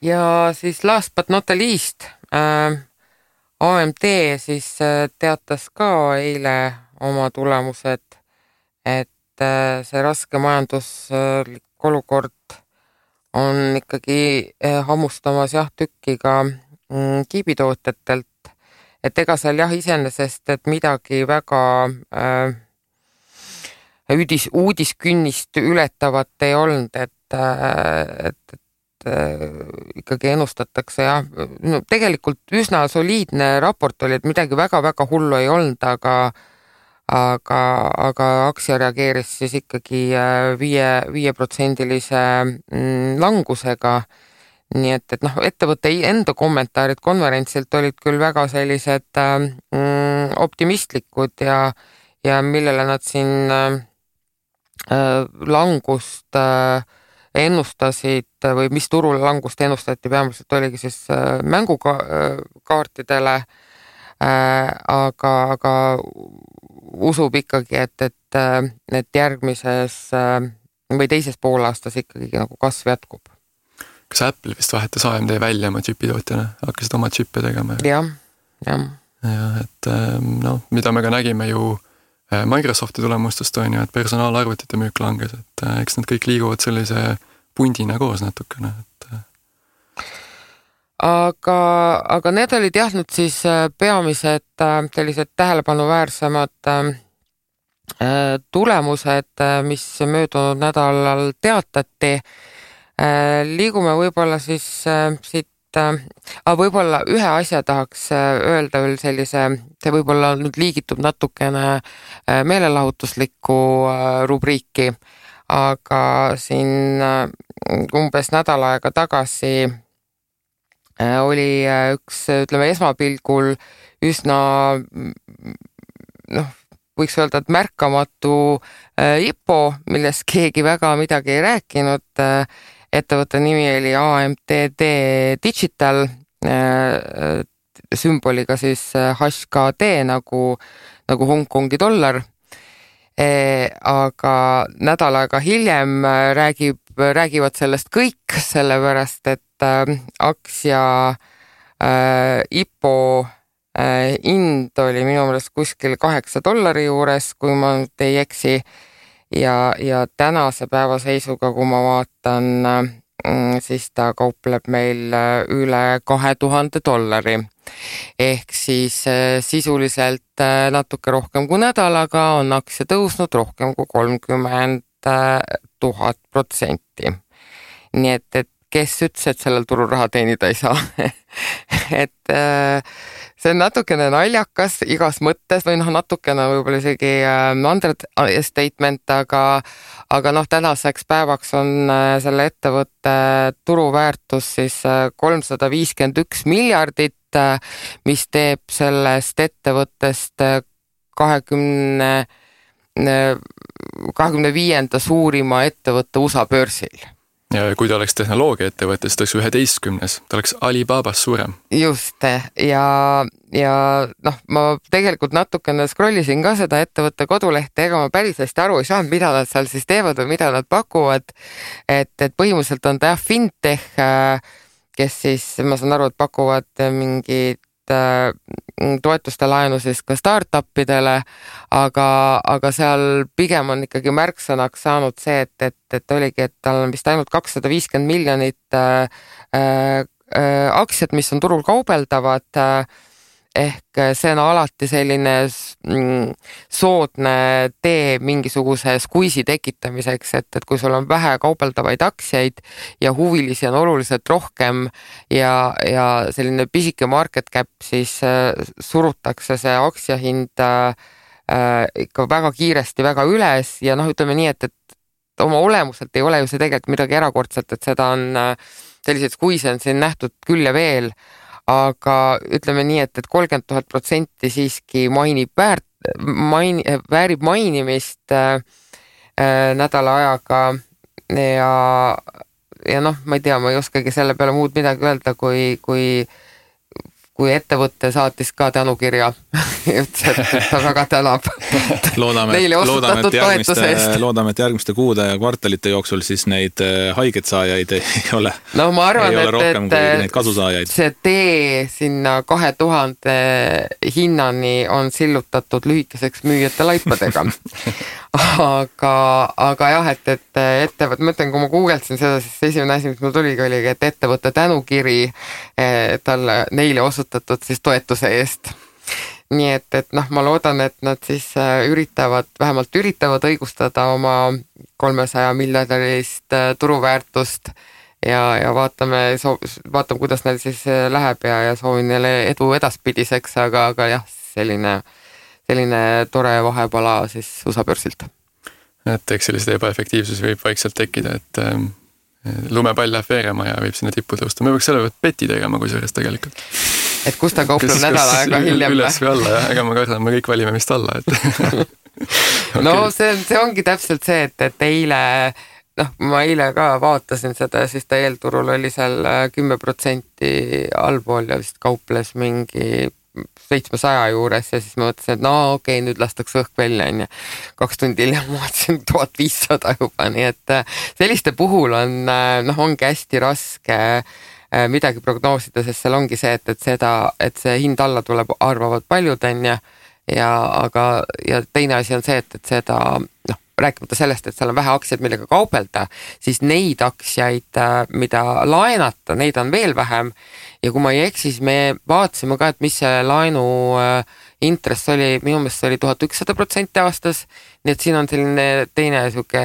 Ja siis last but not the least, AMD siis teatas ka eile oma tulemused, et see raske majanduslik olukord on ikkagi hammustamas jah tükki ka kiibitootjatelt, et ega seal jah iseenesest, et midagi väga uudiskünnist ületavat ei olnud, et ikkagi ennustatakse jah, no tegelikult üsna soliidne raport oli, et midagi väga-väga hullu ei olnud, aga aktsia reageeris siis ikkagi 5% langusega. Nii et noh, ettevõtte enda kommentaarid konverentsilt olid küll väga sellised optimistlikud ja millele nad siin langust ennustasid või mis turul langust ennustati, peamiselt oligi siis mängukaartidele, aga usub ikkagi, et järgmises või teises poolaastas ikkagi nagu kasv jätkub. Kas Apple vist vahetas AMD välja oma džipitootjana, hakkasid oma džippe tegema? Jah. Ja, et no, mida me ka nägime ju Microsofti tulemustest on ju, et personaalarvutite müük langes, et eks nad kõik liiguvad sellise pundina koos natukene. Aga need olid jah nüüd siis peamised sellised tähelepanuväärsemad tulemused, mis möödunud nädalal teatati. Liigume võib-olla siis siit, võib-olla ühe asja tahaks öelda veel sellise, see võib-olla nüüd liigitub natukene meelelahutuslikku rubriiki, aga siin umbes nädal aega tagasi oli üks, ütleme, esmapilgul üsna, noh, võiks öelda, et märkamatu IPO, millest keegi väga midagi ei rääkinud. Ettevõtte nimi oli AMD Digital, sümboliga siis HKD nagu Hongkongi dollar. Aga nädal aega hiljem räägivad sellest kõik, sellepärast et aktsia IPO hind oli minu meelest kuskil $8 juures, kui ma nüüd ei eksi. Ja tänase päeva seisuga, kui ma vaatan, siis ta kaupleb meil üle $2000. Ehk siis sisuliselt natuke rohkem kui nädalaga on aktsia tõusnud rohkem kui 30,000%. Nii et kes ütles, et sellel turul raha teenida ei saa. Et see on natukene naljakas igas mõttes või noh, natukene võib-olla isegi understatement, aga noh, tänaseks päevaks on selle ettevõtte turuväärtus siis $351 miljardit, mis teeb sellest ettevõttest 25. suurima ettevõtte USA börsil. Ja kui ta oleks tehnoloogia-ettevõte, siis ta oleks 11. Ta oleks Alibabas suurem. Just, ja noh, ma tegelikult natukene scrollisin ka seda ettevõtte kodulehte, ega ma päris hästi aru ei saanud, mida nad seal siis teevad või mida nad pakuvad. Et põhimõtteliselt on ta fintech, kes siis, ma saan aru, et pakuvad mingit toetuste laenu siis ka startupidele, aga seal pigem on ikkagi märksõnaks saanud see, et oligi, et tal on vist ainult 250 miljonit aktsiat, mis on turul kaubeldavad, ehk see on alati selline soodne tee mingisuguse skuisi tekitamiseks, et kui sul on vähe kaubeldavaid aktsiaid ja huvilisi on oluliselt rohkem ja selline pisike market cap, siis surutakse see aktsiahind ikka väga kiiresti väga üles ja ütleme nii, et oma olemuselt ei ole ju see tegelikult midagi erakordset, et seda on selliseid skuise on siin nähtud küll ja veel, aga ütleme nii, et 30,000% siiski väärib mainimist nädala ajaga ja ma ei tea, ma ei oskagi selle peale muud midagi öelda, kui ettevõtte saatis ka tänukirja ja ütles, et ta väga tänab neile osutatud toetuse eest. Loodame, et järgmiste kuude ja kvartalite jooksul siis neid haiget saajaid ei ole, ma arvan, rohkem kui neid kasusaajaid. See tee sinna 2000 hinnani on sillutatud lühikeseks müüjate laipadega. aga jah, et ettevõtte, ma ütlen, kui ma googlesin seda, siis esimene asi, mis mul tuligi, oligi, et ettevõtte tänukiri neile osutatud siis toetuse eest. Nii et ma loodan, et nad siis vähemalt üritavad õigustada oma 300 miljardilist turuväärtust ja vaatame, kuidas neil siis läheb ja soovin neile edu edaspidiseks, aga jah, selline tore vahepala siis USA börsilt. Et eks sellised ebaefektiivsusi võib vaikselt tekkida, et lumepall läheb veerema ja võib sinna tippu tõusta. Me võiks selle peti tegema kui sellest tegelikult. Et kus ta kaupleb nädala aega hiljem? Üles või alla, jah. Ega ma kardan, me kõik valime vist alla. Okay. No see ongi täpselt see, et eile, ma eile ka vaatasin seda, siis ta eelturul oli seal 10% allpool ja vist kauples mingi 700 juures ja siis ma mõtlesin, et okei, nüüd lastakse õhk välja, 2 tundi hiljem ma vaatasin 1500 juba, nii et selliste puhul ongi hästi raske midagi prognoosida, sest seal ongi see, et see hind alla tuleb, arvavad paljud, aga teine asi on see, et seda, rääkimata sellest, et seal on vähe aktsiaid, millega kaubelda, siis neid aktsiaid, mida laenata, neid on veel vähem ja kui ma ei eksi, siis me vaatasime ka, et mis see laenu intress oli, minu meelest oli 1100% aastas, nii et siin on selline teine suke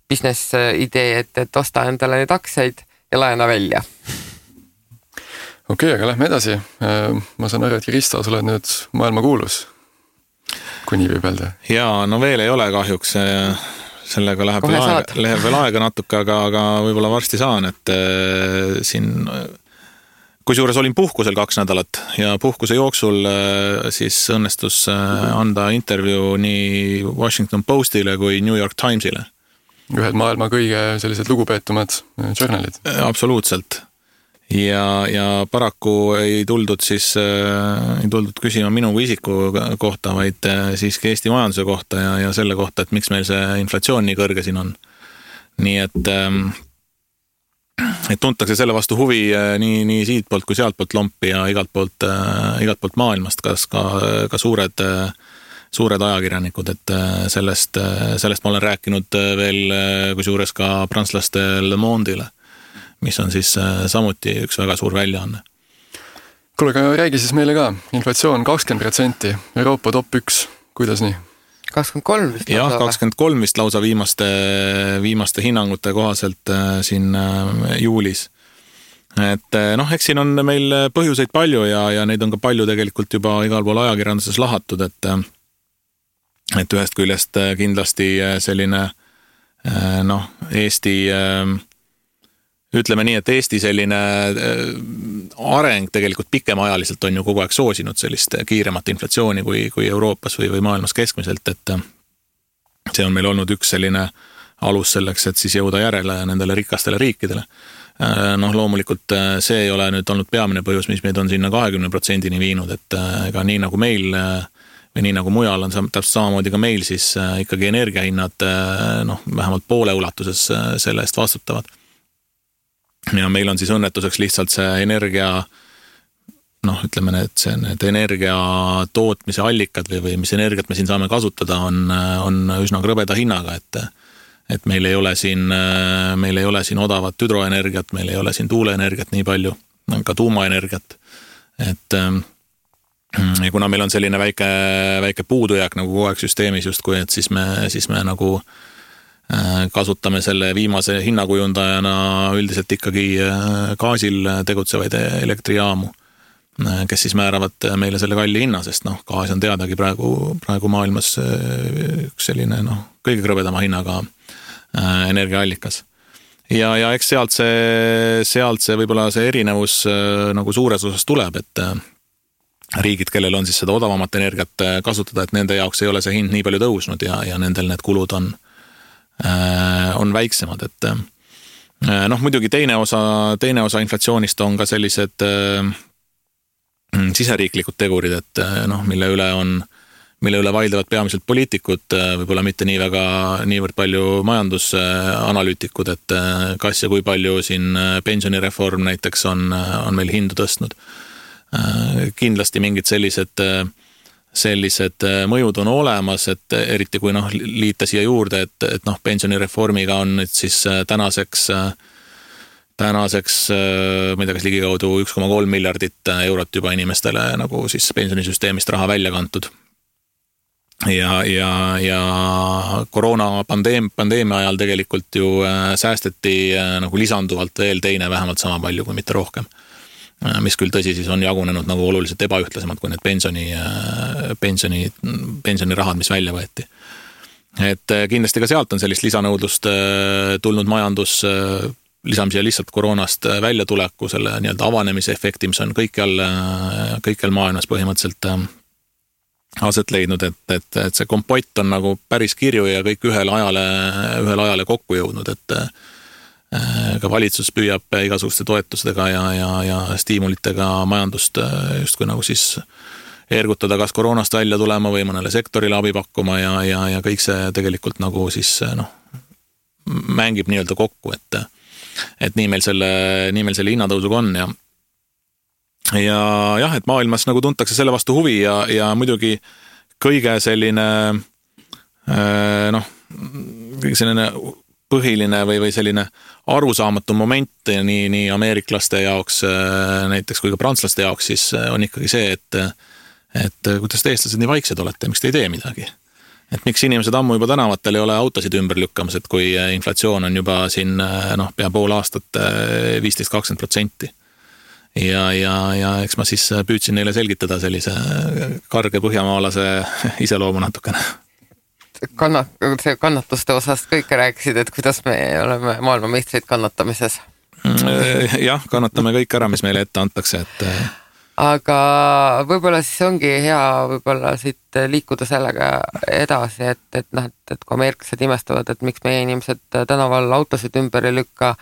business idee, et osta endale neid aktsiaid ja laena välja. Okei, aga lähme edasi. Ma saan aru, et Kristo, sa oled nüüd maailma kuulus, kui nii võib öelda. Jaa, veel ei ole kahjuks. Sellega läheb veel aega natuke, aga võib-olla varsti saan, et siin, kusjuures olin puhkusel 2 nädalat ja puhkuse jooksul siis õnnestus anda intervjuu nii Washington Postile kui New York Timesile. Ühed maailma kõige sellised lugupeetumad journalid. Absoluutselt. Ja paraku ei tuldud küsima minu kui isiku kohta, vaid siiski Eesti majanduse kohta ja selle kohta, et miks meil see inflatsioon nii kõrge siin on. Nii et tuntakse selle vastu huvi nii siit poolt kui sealt poolt lompi ja igalt poolt maailmast, kas ka suured ajakirjanikud, et sellest ma olen rääkinud veel kusjuures ka prantslaste Le Monde'ile, mis on siis samuti üks väga suur väljaanne. Kuule, aga räägi siis meile ka. Inflatsioon 20%, Euroopa top 1, kuidas nii? 23 vist. Jah, 23 vist lausa viimaste hinnangute kohaselt siin juulis. Et eks siin on meil põhjuseid palju ja neid on ka palju tegelikult juba igal pool ajakirjanduses lahatud, et ühest küljest kindlasti selline Eesti, ütleme nii, et Eesti selline areng tegelikult pikemaajaliselt on ju kogu aeg soosinud sellist kiiremat inflatsiooni kui Euroopas või maailmas keskmiselt, et see on meil olnud üks selline alus selleks, et siis jõuda järele nendele rikastele riikidele. Loomulikult see ei ole nüüd olnud peamine põhjus, mis meid on sinna 20%-ni viinud, et ega nii nagu meil või nii nagu mujal on täpselt samamoodi ka meil, siis ikkagi energiahinnad vähemalt poole ulatuses selle eest vastutavad. Ja meil on siis õnnetuseks lihtsalt see energia noh, ütleme need energia tootmise allikad või mis energiat me siin saame kasutada, on üsna krõbeda hinnaga, et meil ei ole siin odavat hüdroenergiat, meil ei ole siin tuuleenergiat nii palju, ka tuumaenergiat, et ja kuna meil on selline väike puudujääk nagu kogu aeg süsteemis justkui, et siis me nagu kasutame selle viimase hinnakujundajana üldiselt ikkagi gaasil tegutsevaid elektrijaamu, kes siis määravad meile selle kalli hinna, sest noh, gaas on teadagi praegu maailmas üks selline kõige krõbedama hinnaga energiaallikas. Ja eks sealt see võib-olla see erinevus nagu suures osas tuleb, et riigid, kellel on siis seda odavamat energiat kasutada, et nende jaoks ei ole see hind nii palju tõusnud ja nendel need kulud on väiksemad, et noh, muidugi teine osa inflatsioonist on ka sellised siseriiklikud tegurid, et noh, mille üle vaidlevad peamiselt poliitikud, võib-olla mitte niivõrd palju majandusanalüütikud, et kas ja kui palju siin pensionireform näiteks on meil hindu tõstnud. Kindlasti mingid sellised mõjud on olemas, et eriti kui liita siia juurde, et pensionireformiga on nüüd siis tänaseks ma ei tea, kas ligikaudu 1,3 miljardit eurot juba inimestele nagu siis pensionisüsteemist raha välja kantud. Ja koroonapandeemia ajal tegelikult ju säästeti nagu lisanduvalt veel teine vähemalt sama palju kui mitte rohkem, mis küll tõsi siis on jagunenud nagu oluliselt ebaühtlasemad kui need pensionirahad, mis välja võeti. Et kindlasti ka sealt on sellist lisanõudlust tulnud majandus, lisame siia lihtsalt koroonast välja tuleku, selle nii-öelda avanemise efekti, mis on kõikjal maailmas põhimõtteliselt aset leidnud, et see kompott on nagu päris kirju ja kõik ühel ajale kokku jõudnud, et ka valitsus püüab igasuguste toetustega ja stiimulitega majandust justkui nagu siis ergutada kas koroonast välja tulema või mõnele sektorile abi pakkuma ja kõik see tegelikult nagu siis mängib nii-öelda kokku, et nii meil selle hinnatõusuga on ja jah, et maailmas nagu tuntakse selle vastu huvi ja muidugi kõige selline selline põhiline või selline arusaamatu moment nii ameeriklaste jaoks näiteks kui ka prantslaste jaoks siis on ikkagi see, et kuidas te eestlased nii vaiksed olete, miks te ei tee midagi. Et miks inimesed ammu juba tänavatel ei ole autosid ümber lükkamas, et kui inflatsioon on juba siin pea pool aastat 15-20%. Ja eks ma siis püüdsin neile selgitada sellise karge põhjamaalase iseloomu natukene. See kannatuste osast kõike rääkisid, et kuidas me oleme maailmameistrid kannatamises. Jah, kannatame kõik ära, mis meile ette antakse, et aga võib-olla siis ongi hea võib-olla siit liikuda sellega edasi, et kui ameeriklased imestavad, et miks meie inimesed tänaval autosid ümber ei lükka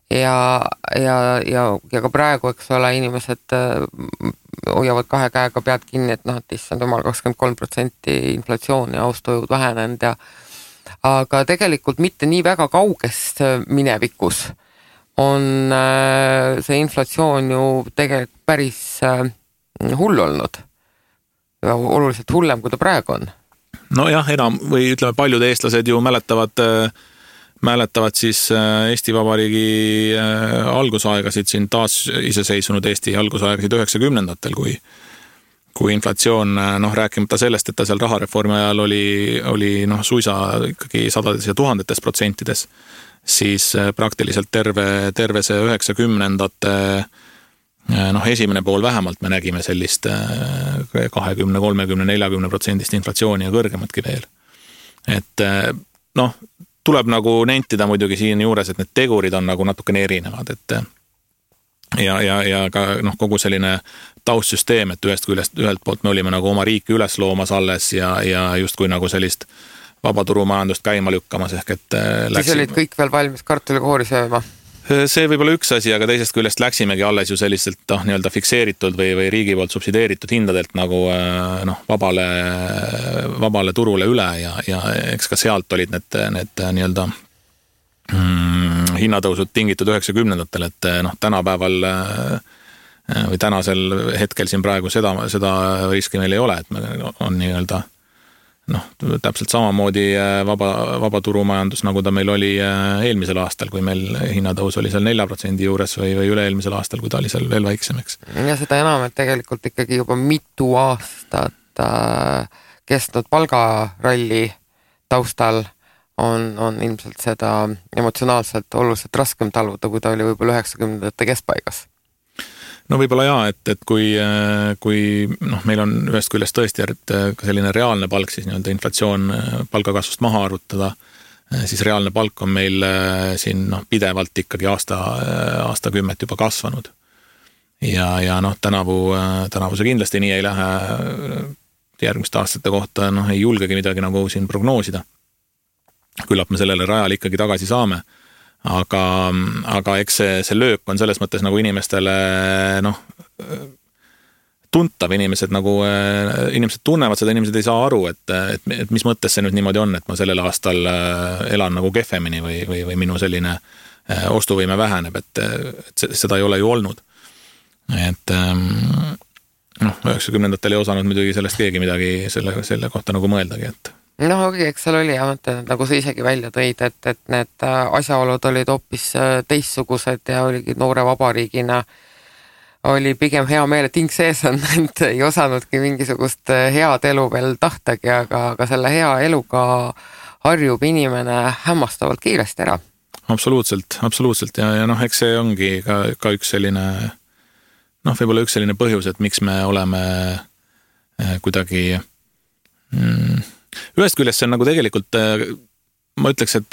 ja ka praegu, eks ole, inimesed hoiavad kahe käega pead kinni, et issand jumal 23% inflatsioon ja ostujõud vähenenud aga tegelikult mitte nii väga kaugest minevikus on see inflatsioon ju tegelikult päris hull olnud. Ja oluliselt hullem, kui ta praegu on. No jah, enam või ütleme, paljud eestlased ju mäletavad siis Eesti Vabariigi algusaegasid, siin taas iseseisvunud Eesti algusaegasid 90-ndatel, kui inflatsioon, rääkimata sellest, et ta seal rahareformi ajal oli suisa ikkagi sadades ja tuhandetes protsentides, siis praktiliselt terve see 90-ndate esimene pool vähemalt me nägime sellist 20, 30, 40% inflatsiooni ja kõrgematki veel. Et tuleb nagu nentida muidugi siin juures, et need tegurid on nagu natukene erinevad, et ja ka kogu selline taustsüsteem, et ühelt poolt me olime nagu oma riiki üles loomas alles ja justkui nagu sellist vabaturumajandust käima lükkamas, ehk et siis olid kõik veel valmis kartulikoori sööma? See võib olla üks asi, aga teisest küljest läksimegi alles ju selliselt nii-öelda fikseeritud või riigi poolt subsideeritud hindadelt nagu vabale turule üle ja eks ka sealt olid need nii-öelda hinnatõusud tingitud 90-ndatel, et tänapäeval või tänasel hetkel siin praegu seda riski meil ei ole, et me on nii-öelda täpselt samamoodi vaba turumajandus, nagu ta meil oli eelmisel aastal, kui meil hinnatõus oli seal 4% juures või üle-eelmisel aastal, kui ta oli seal veel väiksem, eks. Ja seda enam, et tegelikult ikkagi juba mitu aastat kestnud palgaralli taustal on ilmselt seda emotsionaalselt oluliselt raskem taluda, kui ta oli võib-olla 90ndate keskpaigas. No võib-olla jaa, et kui meil on ühest küljest tõesti ka selline reaalne palk, siis nii-öelda inflatsioon palgakasvust maha arvutada, siis reaalne palk on meil siin pidevalt ikkagi aastakümmet juba kasvanud. Ja tänavu see kindlasti nii ei lähe järgmiste aastate kohta, ei julgegi midagi nagu siin prognoosida. Küllap me sellele rajale ikkagi tagasi saame. Aga eks see löök on selles mõttes nagu inimestele tuntav, inimesed tunnevad seda, inimesed ei saa aru, et mis mõttes see nüüd niimoodi on, et ma sellel aastal elan nagu kehvemini või minu selline ostuvõime väheneb, et seda ei ole ju olnud. Et 90ndatel ei osanud muidugi sellest keegi midagi selle kohta nagu mõeldagi, et eks seal oli nagu sa isegi välja tõid, et need asjaolud olid hoopis teistsugused ja oligi noore vabariigina oli pigem hea meel, et hing sees on, et ei osanudki mingisugust head elu veel tahtagi, aga selle hea eluga harjub inimene hämmastavalt kiiresti ära. Absoluutselt ja eks see ongi ka üks selline võib-olla üks selline põhjus, et miks me oleme kuidagi ühest küljest see on nagu tegelikult, ma ütleks, et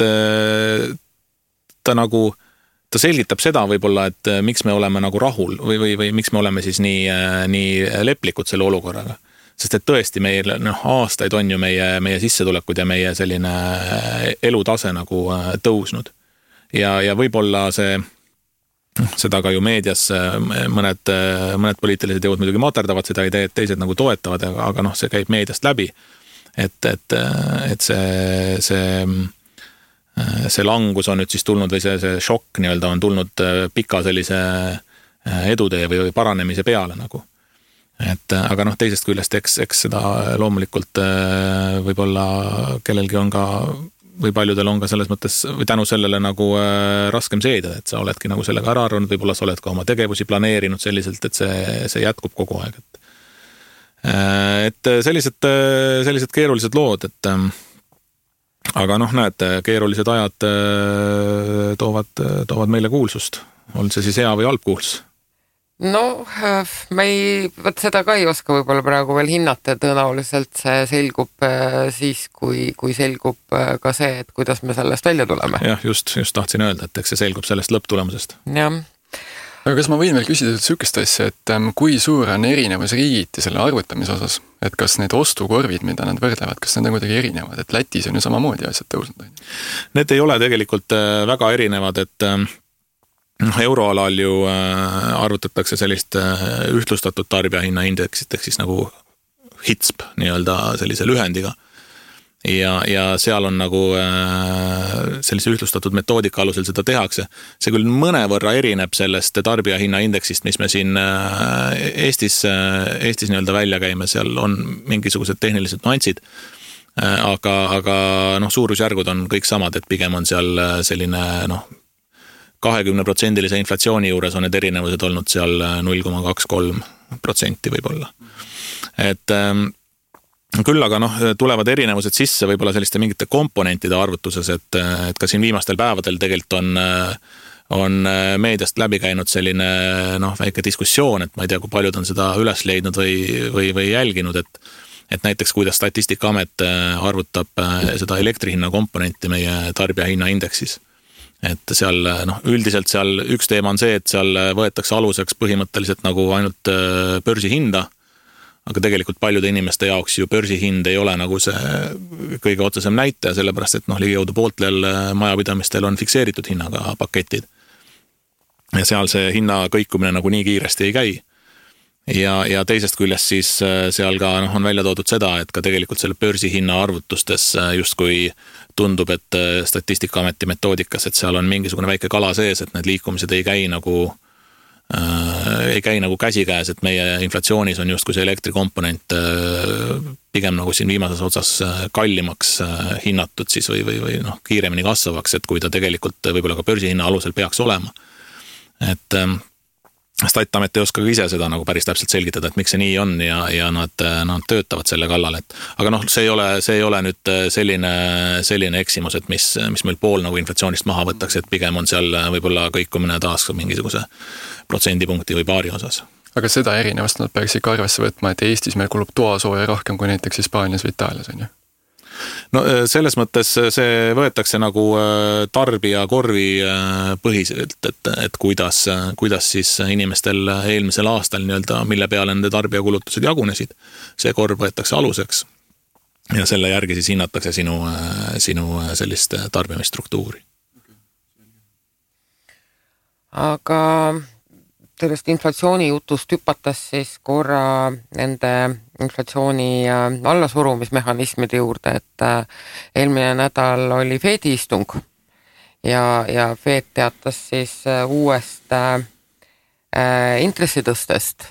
ta selgitab seda võib-olla, et miks me oleme nagu rahul või miks me oleme siis nii leplikud selle olukorraga. Sest et tõesti meil aastaid on ju meie sissetulekud ja meie selline elutase nagu tõusnud. Ja võib-olla seda ka ju meedias mõned poliitilised jõud muidugi materdavad seda ideed, teised nagu toetavad, aga see käib meediast läbi. Et see langus on nüüd siis tulnud või see šokk nii-öelda on tulnud pika sellise edutee või paranemise peale nagu. Aga teisest küljest eks seda loomulikult võib-olla kellelgi on ka või paljudel on ka selles mõttes või tänu sellele nagu raskem seeda, et sa oledki nagu sellega ära arvanud, võib-olla sa oled ka oma tegevusi planeerinud selliselt, et see jätkub kogu aeg, et sellised keerulised lood, aga näed, keerulised ajad toovad meile kuulsust. On see siis hea või halb kuulsus? Seda ka ei oska võib-olla praegu veel hinnata ja tõenäoliselt see selgub siis, kui selgub ka see, et kuidas me sellest välja tuleme. Jah, just tahtsin öelda, et eks see selgub sellest lõpptulemusest. Jah. Aga kas ma võin veel küsida sükest asja, et kui suur on erinevus riigiti selle arvutamise osas? Et kas need ostukorvid, mida nad võrdlevad, kas need on kuidagi erinevad? Et Lätis on ju samamoodi asjad tõusnud? Need ei ole tegelikult väga erinevad, et euroalal ju arvutatakse sellist ühtlustatud tarbijahinna indeksit, ehk siis nagu HITSP nii-öelda sellise lühendiga. Ja seal on nagu sellise ühtlustatud metoodika alusel seda tehakse. See küll mõnevõrra erineb sellest tarbijahinna indeksist, mis me siin Eestis nii-öelda välja käime, seal on mingisugused tehnilised nüansid, aga suurusjärgud on kõik samad, et pigem on seal selline 20% inflatsiooni juures on need erinevused olnud seal 0,23% võib-olla. Et küll aga tulevad erinevused sisse võib-olla selliste mingite komponentide arvutuses, et ka siin viimastel päevadel tegelikult on meediast läbi käinud selline väike diskussioon, et ma ei tea, kui paljud on seda üles leidnud või jälginud, et näiteks kuidas Statistikaamet arvutab seda elektrihinna komponenti meie tarbijahinna indeksis. Et seal üldiselt seal üks teema on see, et seal võetakse aluseks põhimõtteliselt nagu ainult börsihinda, aga tegelikult paljude inimeste jaoks ju börsihind ei ole nagu see kõige otsesem näitaja, sellepärast et ligikaudu pooltel majapidamistel on fikseeritud hinnaga paketid. Ja seal see hinna kõikumine nagu nii kiiresti ei käi. Ja teisest küljest siis seal ka on välja toodud seda, et ka tegelikult selle börsihinna arvutustes justkui tundub, et Statistikaameti metoodikas, et seal on mingisugune väike kala sees, et need liikumised ei käi nagu ei käi nagu käsikäes, et meie inflatsioonis on justkui see elektrikomponent pigem nagu siin viimases otsas kallimaks hinnatud siis või noh, kiiremini kasvavaks, et kui ta tegelikult võib-olla ka börsihinna alusel peaks olema. Et Statamet ei oska ka ise seda nagu päris täpselt selgitada, et miks see nii on ja nad töötavad selle kallal, et aga noh, see ei ole nüüd selline eksimus, et mis meil pool nagu inflatsioonist maha võtaks, et pigem on seal võib-olla kõikumine taas mingisuguse protsendipunkti või paari osas. Aga seda erinevast nad peaks ikka arvesse võtma, et Eestis meil kulub toasooja rohkem kui näiteks Hispaanias või Itaalias, on ju? No selles mõttes see võetakse nagu tarbija korvi põhiselt, et kuidas siis inimestel eelmisel aastal nii-öelda, mille peale nende tarbijakulutused jagunesid, see korv võetakse aluseks ja selle järgi siis hinnatakse sinu sellist tarbimisstruktuuri. Aga sellest inflatsiooni jutust hüpatas siis korra nende inflatsiooni allasurumismehhanismide juurde, et eelmine nädal oli Fedi istung ja Fed teatas siis uuest intressitõstest,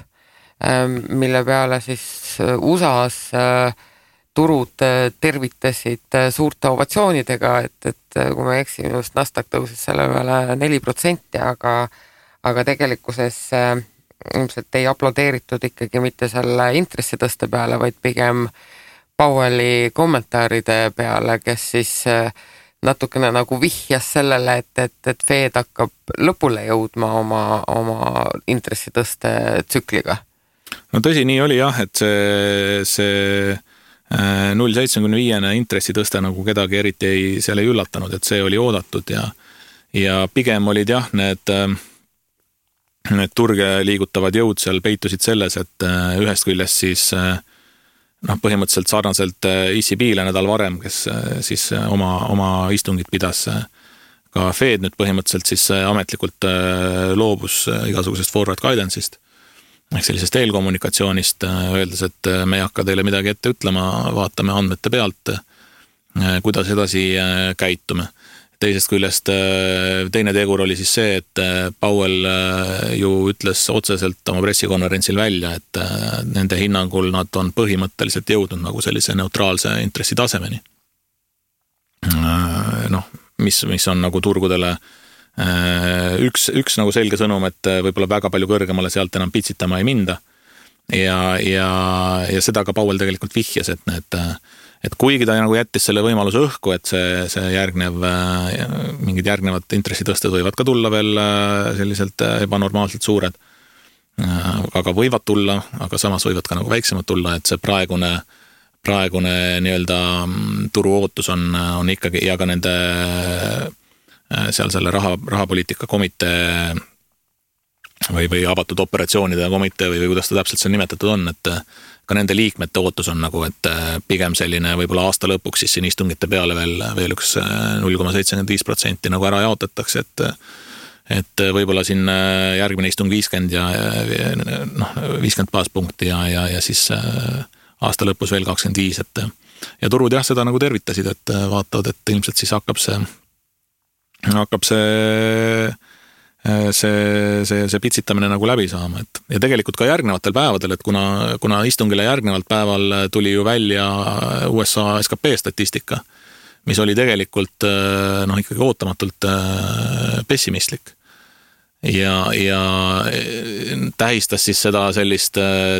mille peale siis USA's turud tervitasid suurte ovatsioonidega, et kui ma eksin, just Nasdaq tõusis selle peale 4%, aga tegelikkuses ilmselt ei aplodeeritud ikkagi mitte selle intressitõste peale, vaid pigem Powelli kommentaaride peale, kes siis natukene nagu vihjas sellele, et Fed hakkab lõpule jõudma oma intressitõste tsükliga. No tõsi, nii oli jah, et see 0,75 intressitõste nagu kedagi eriti seal ei üllatanud, et see oli oodatud ja pigem olid jah, need turge liigutavad jõud seal peitusid selles, et ühest küljest siis põhimõtteliselt sarnaselt ECB-le nädal varem, kes siis oma istungit pidas, ka Fed nüüd põhimõtteliselt siis ametlikult loobus igasugusest forward guidance'ist ehk sellisest eelkommunikatsioonist, öeldes, et me ei hakka teile midagi ette ütlema, vaatame andmete pealt, kuidas edasi käitume. Teisest küljest teine tegur oli siis see, et Powell ju ütles otseselt oma pressikonverentsil välja, et nende hinnangul nad on põhimõtteliselt jõudnud nagu sellise neutraalse intressi tasemeni. Mis on nagu turgudele üks nagu selge sõnum, et võib-olla väga palju kõrgemale sealt enam pitsitama ei minda. Ja seda ka Powell tegelikult vihjas, et kuigi ta nagu jättis selle võimaluse õhku, et see mingid järgnevad intressitõsted võivad ka tulla veel selliselt ebanormaalselt suured, aga võivad tulla, aga samas võivad ka nagu väiksemad tulla, et see praegune nii-öelda turu ootus on ikkagi ja ka nende seal selle rahapoliitika komitee või avatud operatsioonide komitee või kuidas ta täpselt seal nimetatud on, et ka nende liikmete ootus on nagu, et pigem selline võib-olla aasta lõpuks siis siin istungite peale veel üks 0,75% nagu ära jaotatakse, et võib-olla siin järgmine istung 50 ja 50 baaspunkti ja siis aasta lõpus veel 25, ja turud jah, seda nagu tervitasid, et vaatavad, et ilmselt siis hakkab see pitsitamine nagu läbi saama, et ja tegelikult ka järgnevatel päevadel, et kuna istungile järgnevalt päeval tuli ju välja USA SKP statistika, mis oli tegelikult ikkagi ootamatult pessimistlik ja tähistas siis seda sellist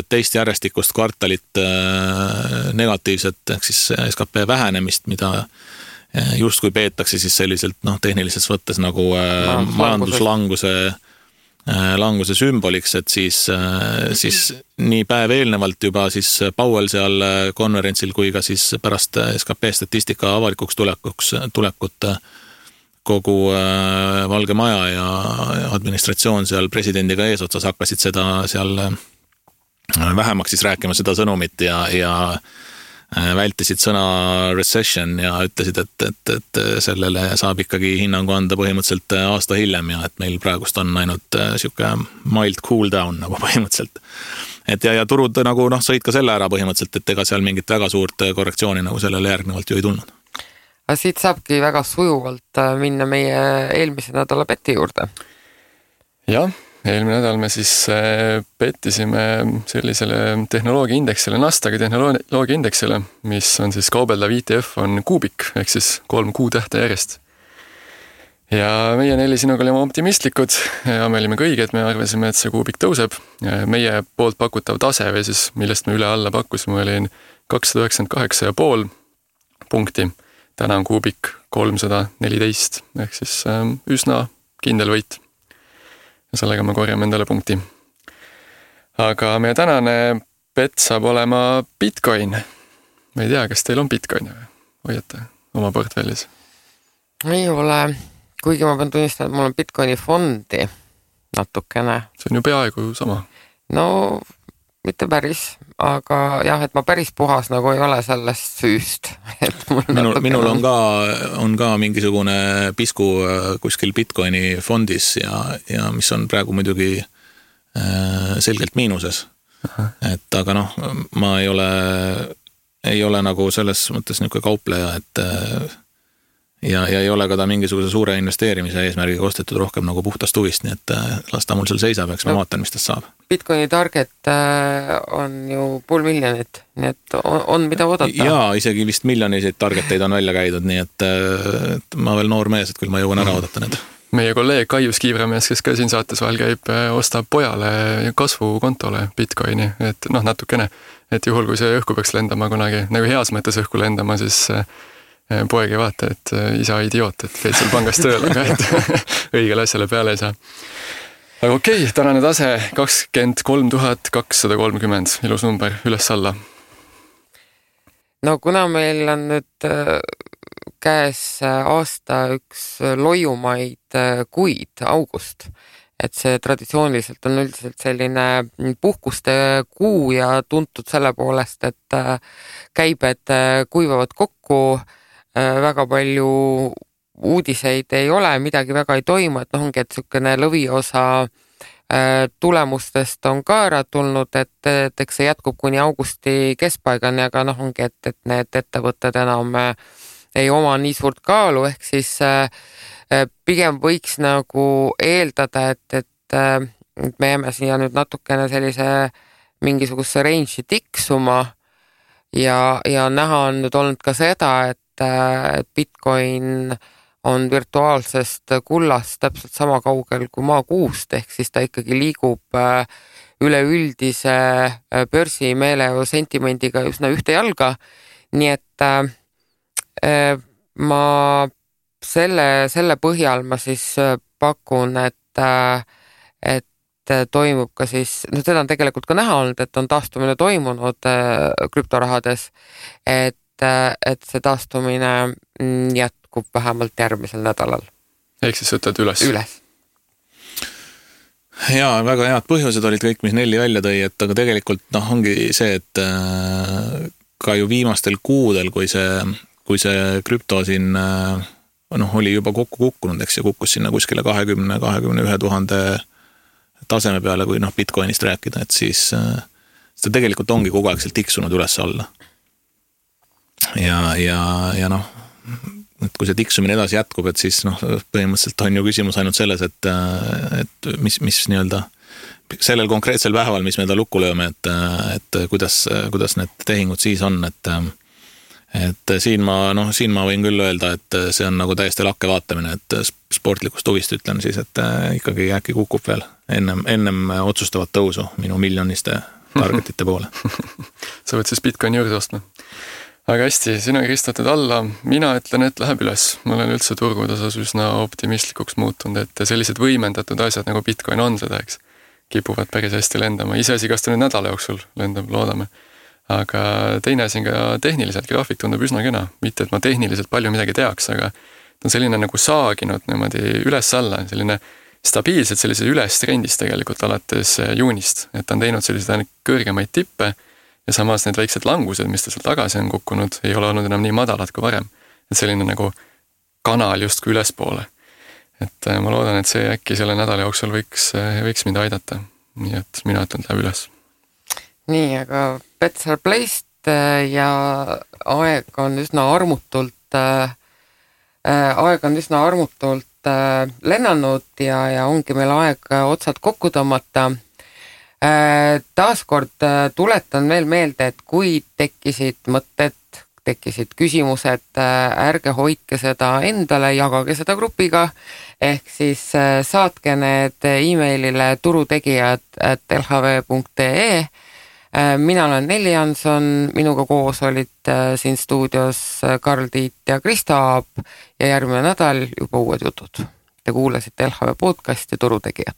teist järjestikust kvartalit negatiivset ehk siis SKP vähenemist, mida justkui peetakse siis selliselt tehnilises võttes nagu majanduslanguse sümboliks, et siis nii päev eelnevalt juba siis Powell seal konverentsil kui ka siis pärast SKP statistika avalikuks tulekut kogu Valge Maja ja administratsioon seal presidendiga eesotsas hakkasid seda seal vähemaks siis rääkima seda sõnumit ja vältisid sõna recession ja ütlesid, et sellele saab ikkagi hinnangu anda põhimõtteliselt aasta hiljem ja et meil praegust on ainult siuke mild cool down nagu põhimõtteliselt. Et ja turud nagu sõid ka selle ära põhimõtteliselt, et ega seal mingit väga suurt korrektsiooni nagu sellele järgnevalt ju ei tulnud. Aga siit saabki väga sujuvalt minna meie eelmise nädala beti juurde. Jah, eelmine nädal me siis pettisime sellisele tehnoloogiaindeksile, Nasdaqi tehnoloogiaindeksile, mis on siis kaubeldav ETF on kuubik, ehk siis 3 kuutähte järjest. Ja meie 4 sinuga olime optimistlikud ja me olime kõiged, me arvasime, et see kuubik tõuseb. Meie poolt pakutav tase või siis, millest me üle alla pakkusime, oli 298,5 punkti. Täna on kuubik 314, ehk siis üsna kindel võit. Ja sellega me korjame endale punkti. Aga meie tänane bet saab olema Bitcoin. Ma ei tea, kas teil on Bitcoin või hoiate oma portfellis? Ei ole, kuigi ma pean tunnistama, et mul on Bitcoini fondi natukene. See on ju peaaegu sama. No, mitte päris, aga jah, et ma päris puhas nagu ei ole sellest süüst. Et minul on ka mingisugune pisku kuskil Bitcoini fondis ja mis on praegu muidugi selgelt miinuses. Et aga noh, ma ei ole nagu selles mõttes niisugune kaupleja, et ja ei ole ka ta mingisuguse suure investeerimise eesmärgiga ostetud rohkem nagu puhtast huvist, nii et las ta mul seal seisab, eks ma vaatan, mis tast saab. Bitcoini target on ju 500 000, nii et on mida oodata. Jaa, isegi vist miljoniseid targeteid on välja käidud, nii et ma veel noor mees, et küll ma jõuan ära oodata need. Meie kolleeg Kaius Kiivramees, kes ka siin saates vahel käib, ostab pojale kasvukontole Bitcoini, et natukene, et juhul kui see õhku peaks lendama kunagi, nagu heas mõttes õhku lendama, siis poeg ei vaata, et isa idioot, et käid seal pangas tööl, aga et õigele asjale peale ei saa. Aga okei, tänane tase 23 230, ilus number, üles-alla. No kuna meil on nüüd käes aasta üks loiumaid kuid, august, et see traditsiooniliselt on üldiselt selline puhkuste kuu ja tuntud selle poolest, et käibed kuivavad kokku, väga palju uudiseid ei ole, midagi väga ei toimu, et ongi, et niisugune lõviosa tulemustest on ka ära tulnud, et eks see jätkub kuni augusti keskpaigani, aga ongi, et need ettevõtted enam ei oma nii suurt kaalu, ehk siis pigem võiks nagu eeldada, et me jääme siia nüüd natukene sellise mingisuguse range'i tiksuma ja näha on nüüd olnud ka seda, et Bitcoin on virtuaalsest kullast täpselt sama kaugel kui maakuust, ehk siis ta ikkagi liigub üleüldise börsimeelejõu sentimendiga üsna ühte jalga, nii et ma selle põhjal ma siis pakun, et toimub ka siis, seda on tegelikult ka näha olnud, et on taastumine toimunud krüptorahades, et see taastumine jätkub vähemalt järgmisel nädalal. Ehk siis ütled üles? Üles. Jaa, väga head põhjused olid kõik, mis Nelli välja tõi, et aga tegelikult ongi see, et ka ju viimastel kuudel, kui see krüpto siin oli juba kokku kukkunud, eks ja kukkus sinna kuskile 20-21 000 taseme peale, kui Bitcoinist rääkida, et siis ta tegelikult ongi kogu aeg seal tiksunud üles alla. Ja et kui see tiksumine edasi jätkub, et siis põhimõtteliselt on ju küsimus ainult selles, et mis nii-öelda sellel konkreetsel päeval, mis me ta lukku lööme, et kuidas need tehingud siis on, et siin ma võin küll öelda, et see on nagu täiesti lakke vaatamine, et sportlikust huvist ütlen siis, et ikkagi äkki kukub veel ennem otsustavat tõusu minu miljoniste targetite poole. Sa võid siis Bitcoini juurde ostma. Aga hästi, sina kristatud alla, mina ütlen, et läheb üles. Ma olen üldse turgude osas üsna optimistlikuks muutunud, et sellised võimendatud asjad nagu Bitcoin on seda, eks, kipuvad päris hästi lendama. Iseasi, kas ta nüüd nädala jooksul lendab, loodame. Aga teine asi ka tehniliselt, graafik tundub üsna kena. Mitte, et ma tehniliselt palju midagi teaks, aga ta on selline nagu saaginud niimoodi üles-alla, selline stabiilselt sellises üles trendis tegelikult alates juunist. Et ta on teinud selliseid kõrgemaid tippe ja samas need väiksed langused, mis ta seal tagasi on kukkunud, ei ole olnud enam nii madalad kui varem. Et selline nagu kanal justkui ülespoole. Et ma loodan, et see äkki selle nädala jooksul võiks mind aidata. Nii et mina ütlen, et läheb üles. Nii, aga bets are placed ja aeg on üsna armutult lennanud ja ongi meil aeg otsad kokku tõmmata. Taaskord tuletan veel meelde, et kui tekkisid mõtted, tekkisid küsimused, ärge hoidke seda endale, jagage seda grupiga, ehk siis saatke need e-mailile turutegijad@lhv.ee. Mina olen Nelli Janson, minuga koos olid siin stuudios Karl Tiit ja Krista Aab ja järgmine nädal juba uued jutud. Te kuulasite LHV podcasti Turutegijad.